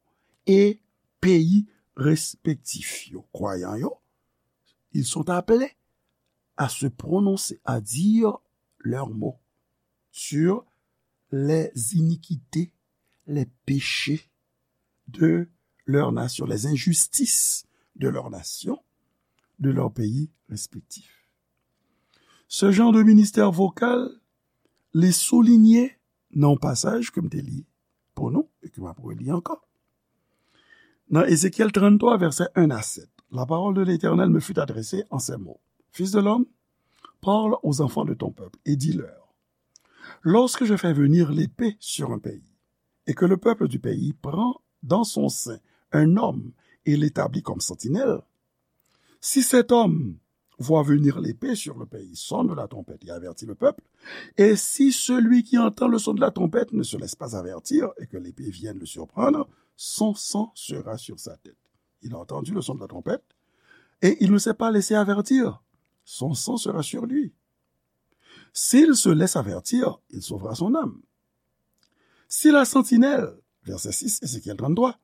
e peyi respektif yo. Kwayan yo, ils sont appelés à se prononcer, à dire leurs mots sur les iniquités, les péchés de leur nation, les injustices de leur nation, de leur pays respectif. Ce genre de ministère vocal, li soulinye nan yon pasaj ke m te li pou nou, e ke m ap reli ankò. Nan Ezekyèl tranntwa, vèsè en a sèt, la parole de l'Éternel me fut adressée en ces mots. Fils de l'homme, parle aux enfants de ton peuple et dis-leur, lorsque je fais venir l'épée sur un pays, et que le peuple du pays prend dans son sein un homme et l'établit comme sentinelle, si cet homme voit venir l'épée sur le pays, sonne la trompette et avertit le peuple, et si celui qui entend le son de la trompette ne se laisse pas avertir et que l'épée vienne le surprendre, son sang sera sur sa tête. Il a entendu le son de la trompette et il ne s'est pas laissé avertir. Son sang sera sur lui. S'il se laisse avertir, il sauvera son âme. Si la sentinelle, verset six, Ézéchiel trente-trois,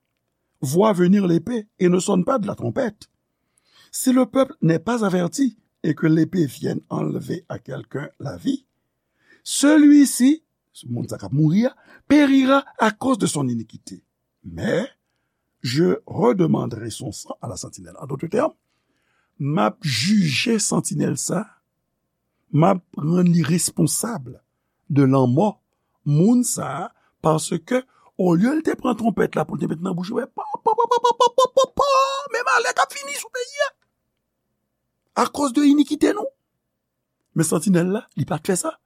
voit venir l'épée et ne sonne pas de la trompette, si le peuple n'est pas averti et que l'épée vienne enlever à quelqu'un la vie, celui-ci, moun sa k ap mouri a, périra à cause de son iniquité. Mais je redemanderai son sang à la sentinelle. En d'autres termes, m ap jije santinèl sa, m ap rann li responsab de lanmò moun sa a, paske olye l te pran twonpèt la pou l te met nan bouch li, pa, pa, pa, men malè k ap vini sou peyi a, akoz de inikite nou. Men santinèl la, li pa t fè sa.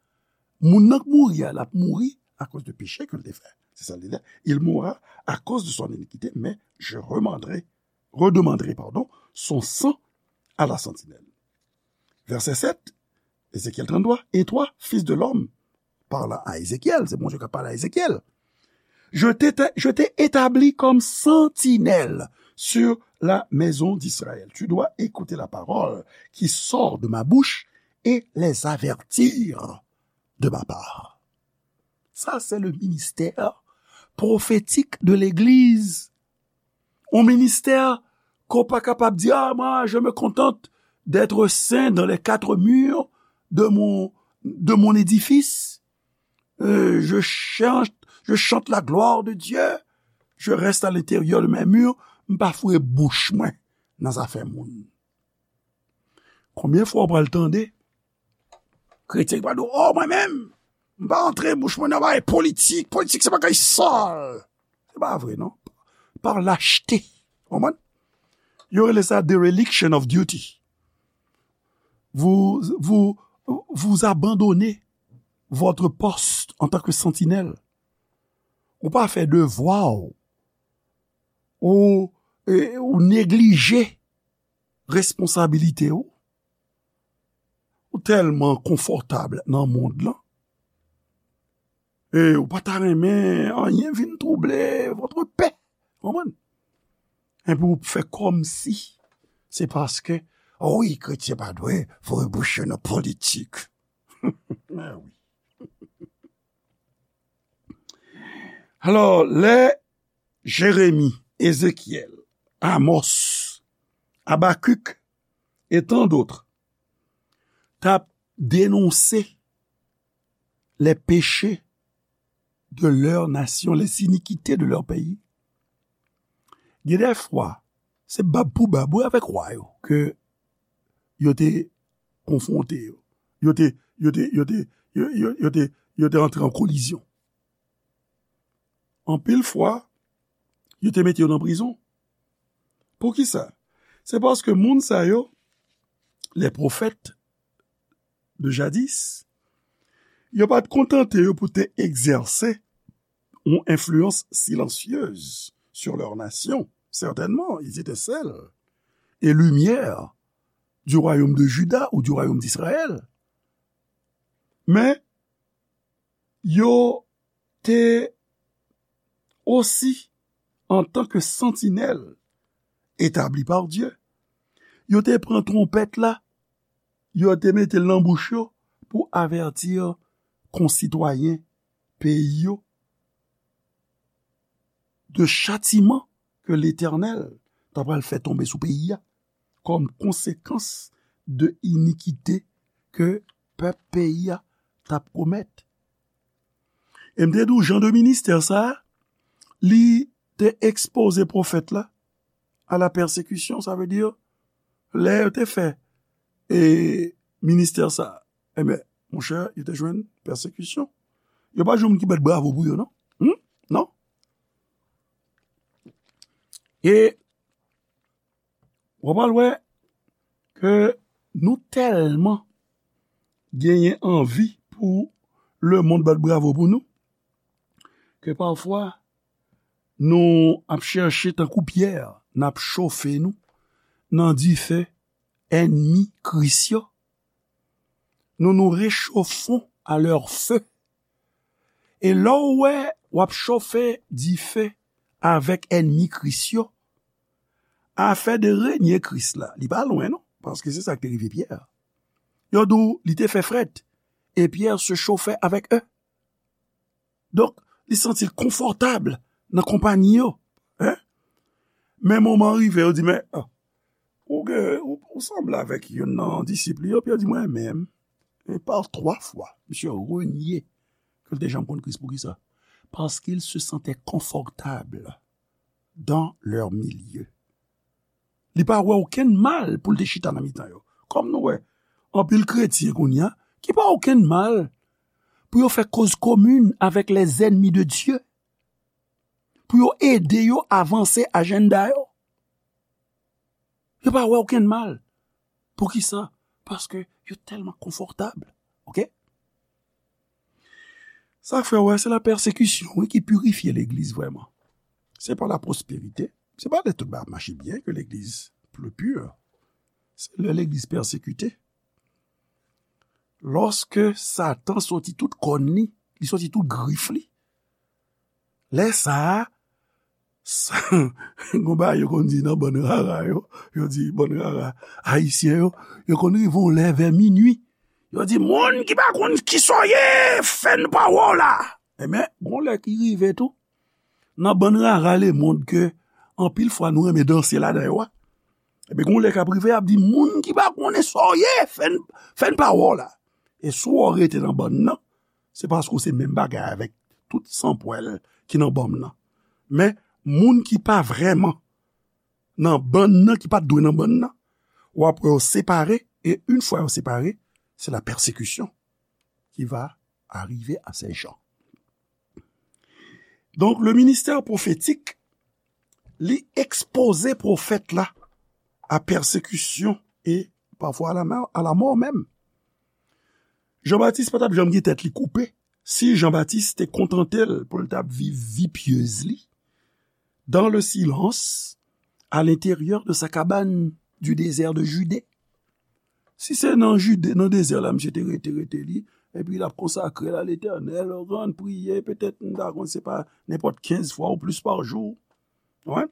Moun nan k mouri a, l ap mouri akoz de peche ke l te fè. Se sa l di la. Il mourra à cause de son iniquité, mais je redemanderai, redemanderai, pardon, son sang à la sentinelle. Verset sept, Ézéchiel trente-trois, et toi, fils de l'homme, parlant à Ézéchiel, se Bondye k ap pale a Ezekyèl. Je t'ai, je t'ai établi comme sentinelle sur la maison d'Israël. Tu dois écouter la parole qui sort de ma bouche et les avertir de ma part. Sa se le ministè pwofetik de legliz. Yon ministè Ke w pa kapab di, ah, moi, je me contente d'être saint dans les quatre murs de mon, de mon édifice. Euh, je chante, je chante la gloire de Dieu. Je reste à l'intérieur de mes murs. M pa foure bouch mwen nan zafè moun. Konbyen fwa w pral tande kretyen ki pral di w, oh, mwen menm, m pa antre bouch mwen nan bagay politik. Politik se bagay sal. Se pa vre, non. Par lâcheté. Konprann? Yo rele sa dereliction of duty. Vous, vous, vous abandonnez votre poste en tant que sentinelle. Ou pa fè devwa w. Ou, e, ou neglije responsabilite w. Ou tèlman konfòtab nan mond lan. E ou pa ta renmen anyen vin twouble votre paix. Konprann? Epi ou fè kòmsi se paske, wi, kretyen pa dwe foure bouch yo nan politik. Ah wi. Alò, lè Jeremi, Ezekyèl, Amos, Abakik e tan dòt t ap denonse les péchés de leur nation, les iniquités de leur pays. Gen de fwa, se bab pou bab, wi, avèk wa yo, ke yo te konfwonte yo. Yo te, yo te, yo te, yo, yo, yo te, yo te antre an kolizyon. Anpil fwa, yo te mete yo nan prizon. Poukisa? Se paske moun sa yo, les prophètes de jadis, yo pa t kontante yo pou te egzèse yon enfliyans silansyez sur leur nation. Certainement, ils étaient sel et lumière du royaume de Juda ou du royaume d'Israël. Men, yo te osi, antan ke santinèl etabli pa Dye, yo te pran twonpèt la, yo te mete l nan bouch yo pou avèti konsitwayen peyi yo de chatiman ke Letènèl ta pral fè tonbe sou peyi a kòm konsekans de inikite ke pèp peyi a t ap komèt. E m te di w, jan de ministè sa a, li te ekspoze pwofèt la a la pèsekisyon, sa vle di, lè yo te fè, e, ministè sa a, enben, monchè, yo te jwenn pèsekisyon. Yo pa jwenn moun ki bat bravo pou yo, non. Hmm? Non? E w ap al wè ke nou tèlman genyen anvi pou lemonn bat bravo pou nou, ke pafwa nou ap chèche tankou Pyè, n ap chofe nou nan dife ènmi Kris yo. Nous nous réchauffons à leur feu. E lè w wè w ap chofe dife avèk ènmi Kris yo, afè de renye Kris la, li pa lwen non, paske se sa k te rive Pyè. Yo di w li te fè frèt, et Pierre se chauffait avec eux. Donk, li santi l konfòtab nan konpanyi yo. Hein? Men moman rive, yo di, men, ah, ou gen, ou, ou sanble avèk youn nan disip li yo, Pyè di, mwen menm, e pa twa fwa, misye renye ke l te janm konn Kris. Poukisa? Parce qu'il se sentait confortable dans leur milieu. Li pa wè okenn mal pou l te chita nan mitan yo. Kòm nou wè, anpil kretyen kounye a, ki pa wè okenn mal pou yo fè koz komin avèk les ennemis de Dieu, pou yo ede yo avanse ajanda yo. Yo pa wè okenn mal. Poukisa? Paske yo tèlman konfòtab. Oke? Sa k fè w wè, se la pèsekisyon, wi, ki pirifye legliz vrèman. Se pa la pwosperite. Se pa lè tout bagay ap mache byen ke legliz pli pur. Se lè legliz pèsekite. Lòske Satan soti tout kòn li, li soti tout grif li, lè sa a, sa, gon bagay yo konn di nan bann rara yo, yo di bann rara ayisyen yo, yo konn rive yon lè vè minui. Yo di, moun ki pa konn kisa w ye, fè n pa wè w la. Enben, gon lè ki rive tou, nan bann rara lemonn ke anpil fwa nou renmen danse ladan yo a. Epi gon lè k ap rive, y ap di, moun ki pa konnen sa w ye, fè n, fè n pa wè w la. E si w rete nan bann nan, se paske w se menm bagay avèk tout sanpwèl ki nan bann nan. Men, moun ki pa vrèman nan bann nan, ki pa t dwe nan bann nan, w ap wè yo separe, e yon fwa yo separe, se la pèsekisyon ki va arive a se jan. Donk, le ministè pwofetik, li ekspoze pwofèt la a pèsekisyon e pafwa a la mò, a la mò menm. Jan Batis pa t ap janm gen tèt li koupe si Jan Batis te kontante l pou l t ap viv vi pyez li dans le silence à l'intérieur de sa cabane du désert de Judée. Si se nan Jide, nan dezè la, misye te rete, rete li, epi l ap konsakre l a Letènèl, rann, priye, petèt, m ta konn, se pa nenpòt kenz fwa ou plis pa jou. Wi.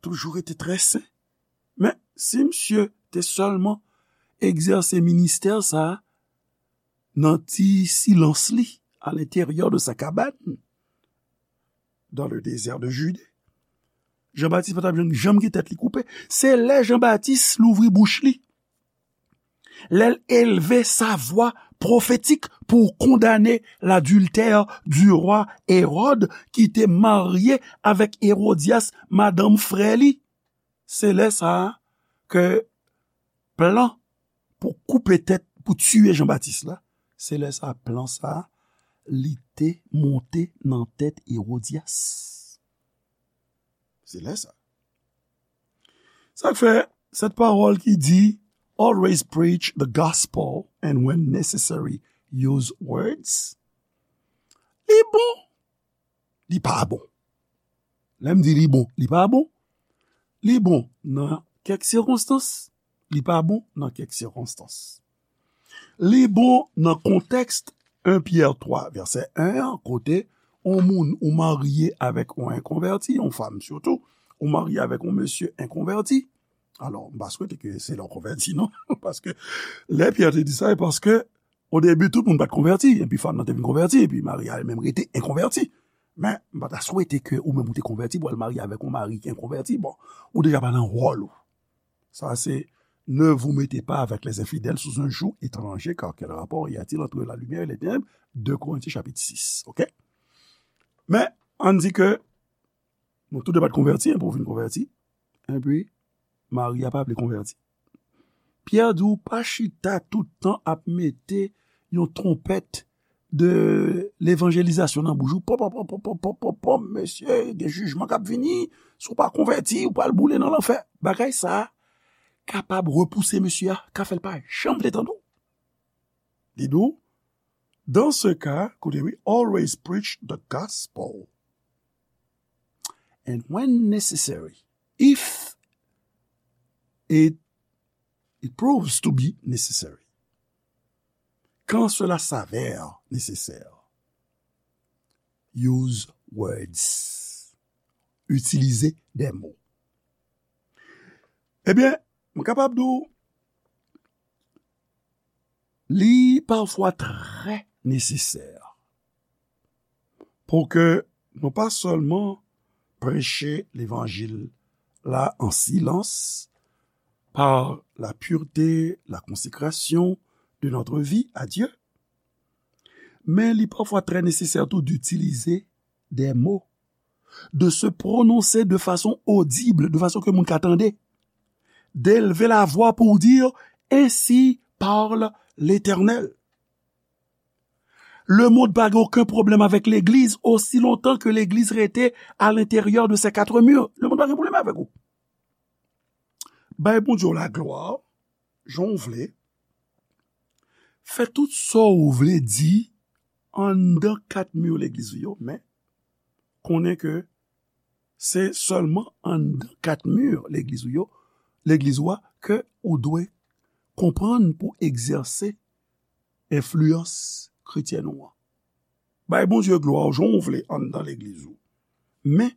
Toujou rete trè sen. Men, si misye te sèlman egzèse ministè sa a nan ti silans li, à l'intérieur de sa cabane, dans le désert de Judée, Jan Batis pa t ap janm, janm gen tèt li koupe. Se lè Jan Batis louvri bouch li, lè l elve sa vwa pwofetik pou kondane ladiltè du roi Hérode ki te marye avèk Hérodias, madanm frè li. Se lè sa a ke plan pou koupe tèt, pou tiye Jan Batis la, se lè sa a plan sa a, li te monte nan tèt Hérodias. Se lè sa. Sa k fè, sèt pawòl ki di, always preach the gospel and when necessary, use words. Li bon, li pa bon. Lè m di li bon, li pa bon. Li bon nan kèk sikonstans, li pa bon nan kèk sikonstans. Li bon nan kontèks en Pyè twa, vèsè en an, kote yon moun ou marye avèk yon enkonvèti, yon fanm sitou, ou marye avèk yon mesye enkonvèti. Alò, m pa swete ke se lè w konvèti, non. Paske lè Pyè te di sa, e paske o debi, tout moun pa t konvèti, epi fanm nan te vin konvèti, epi mari a li menm rete enkonvèti. Men, m pa ta swete ke ou menm ou te konvèti pou al marye avèk yon mari ki enkonvèti. Bon, ou deja pa nan wòl ou. Sa se, ne vous mettez pas avec les infidèles sous un joug étranger, car quel rapport y a-t-il entre la lumière et les ténèbres? De Korentyen chapit sis, oke? Men, ann di ke nou tou de pa t konvèti, enpi w vin konvèti, enpi mari a pa vle konvèti. Pyè di w pa chita tout tan ap mete yon twonpèt de levanjelizasyon nan bouch ou. Pòp, pòp, pòp, mesye, gen jijman k ap vini. Si w pa konvèti, ou pral boule nan lanfè. Bagay sa a kapab repouse mesye a, ka fè l pa janm vle tande w. Li di w, dans ce cas, koute wi, always preach the gospel. And when necessary, if it, it proves to be necessary, quand cela s'avère nécessaire, use words. Itilize des mots. Ebyen, m kapab di w, li pafwa trè nesesè pou ke nou pa sèlman preche levanjil la an silans, par la pureté, la consécration de notre vie à Dieu, men li pafwa trè nesesè tou d'utiliser des mots, de se prononcer de façon audible, de façon ke moun ka tande, d'élever la voix pour dire, ainsi parle l'Éternel. Lemonn pa gen okenn pwoblèm avèk legliz osi lontan ke legliz rete à l'intérieur de ces quatre murs. Lemonn pa gen pwoblèm avèk ou. Bay Bondye w laglwa, jan w vle. Fè tout sa w vle di anndan kat mi legliz ou yo, men konnen ke se sèlman anndan kat mi legliz ou yo, legliz ou a, ke ou dwe konprann pou egzèse enfliyans kretyèn ou an. Bay Bondye glwa w jan w vle anndan legliz ou. Men,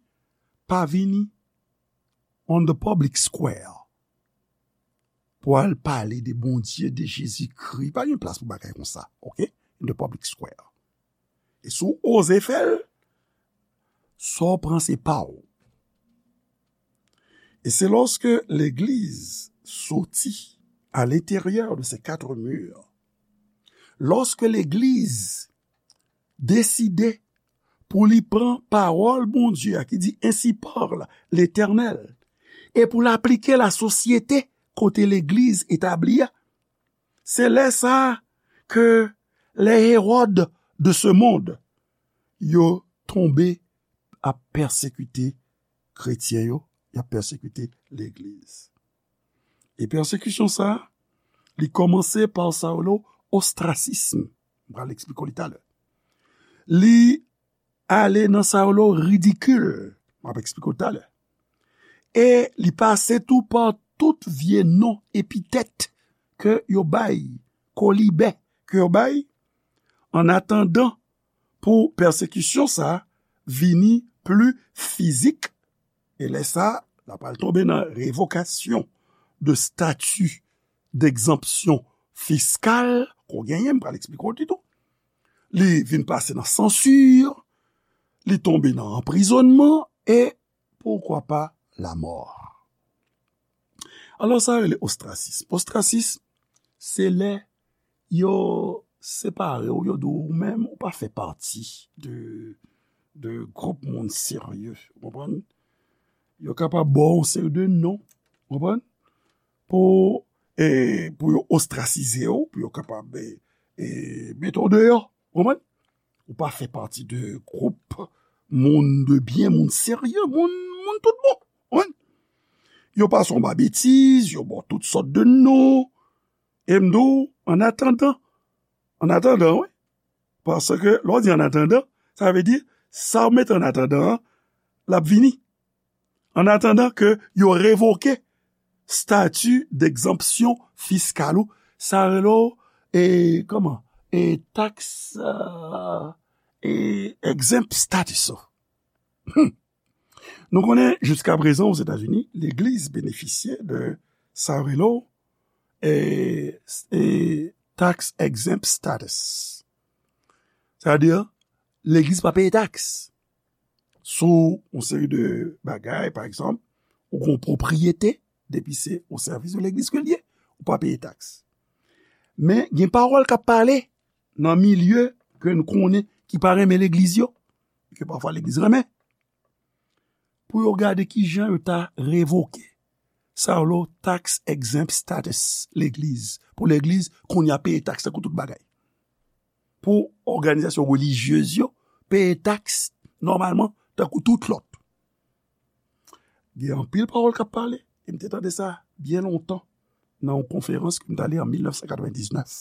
pa vini on the public square pou al pale de Bondye, de Jezikri. Pa gen plas pou bagay konsa, oke? In the public square. E si w oze fè l, sa w pran se pa w. Et c'est lorsque l'Église sortit à l'intérieur de ces quatre murs, lorsque l'Église deside pou li pran pawòl Bondye a ki di, Ainsi parle l'Éternel, e pou l aplike l a sosyete kote legliz etabli a. Se lè sa a ke les Hérode de ce monde, yo tonbe ap pèsekite kretyen yo, y ap pèsekite legliz. E pèsekisyon sa a, li kòmanse pa sa yo rele ostrasism. M pral eksplike w li talè. Li ale nan sa yo rele ridikil. M ap eksplike w talè. E li pase tou pa tout vye non, epitèt ke yo bay, kolibè ke yo bay, an atandan pou pèsekisyon sa a vini pli fizik, e lè sa a, l ap al tonbe nan revokasyon de stati d'egzanpsyon fiskal ke w genyen, m pral eksplike w li tou. Li vin pase nan sansi, li tonbe nan anprizònman, e poukwa pa lamò. Alò, sa rele ostrasism. Ostrasism, se lè yo separe w, yo di w, ou menm, ou pa fè pati de, de gwoup moun serye, ou konprann? Yo kapab ba w yon seri de non, ou konprann? Pou, e, pou yo ostrasize w, pou yo kapab, e, e, mete w deyò, ou konprann? Ou pa fè pati de gwoup moun de byen, moun serye, moun, moun tout bon. Wi. Yo pase w ba betiz, yo ba w tout sòt de non. E m di w, an atandan, an atandan, wi. Paske lè w di an atandan, sa vle di, sa w mete an atandan an, l ap vini. An atandan ke yo revoke stati d'egzanpsyon fiskal ou, sa rele w, e, kòman? E, taks, e, e, exempt status ou. Hmm. Nou konnen, jiska prezan, Ozetazini, legliz benefisye de sa rele w, e, e, tax exempt status. Sa vle di, legliz pa peye taks sou yon seri de bagay, pa egzanp, ou gen yon pwopriyete, depi se o sèvis de legliz ke l ye, ou pa peye taks. Men, gen pawòl k ap pale nan milye ke n konnen ki pa renmen legliz yo, ke pafwa legliz renmen, pou yo gade kijan yo ta revoke sa yo rele tax exempt status legliz, pou legliz kounye a peye taks tankou tout bagay. Pou òganizasyon relijyez yo peye taks nòmalman tankou tout lòt. Gen anpil pawòl k ap pale, e m te tande sa byen lontan nan yon konferans ke m t ale an mil nèf san katrevendiznèf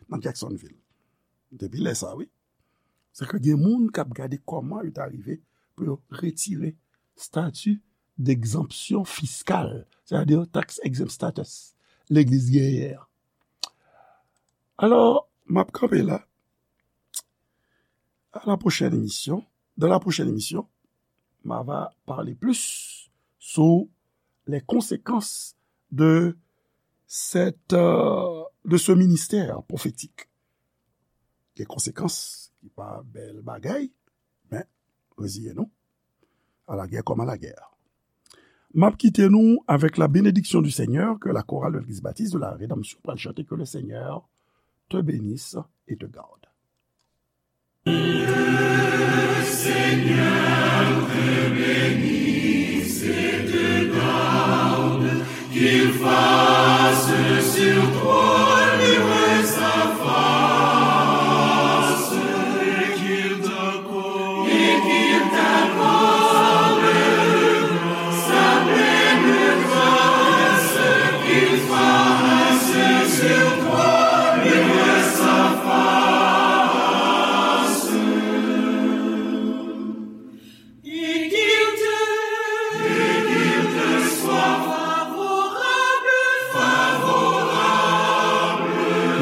nan Jacksonville. Depi lè sa, wi. Se ke gen moun k ap gade kòman yo ta rive pou yo retire stati d'egzanpsyon fiskal, sètadi tax exempt status, legliz genyen an. Alò, m ap kanpe la. À la prochaine émission. Dans la prochaine émission, m a va parler plus sur les conséquences de cette, euh, de ce ministère prophétique. Gen konsekans ki pa bèl bagay, men reziye nou. À la guerre comme à la guerre. M ap kite nou avec la bénédiction du Seigneur que la chorale de l'église baptiste de la Rédemption pral chante, que le Seigneur te bénisse et te garde.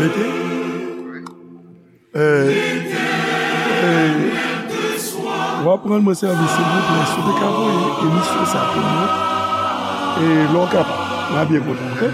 Mete. Eh, eh, w ap rann mwen sèvis, silvouplè, si w te ka voye emisyon sa pou mwen, e lè w kapab, m a byen kontan, oke?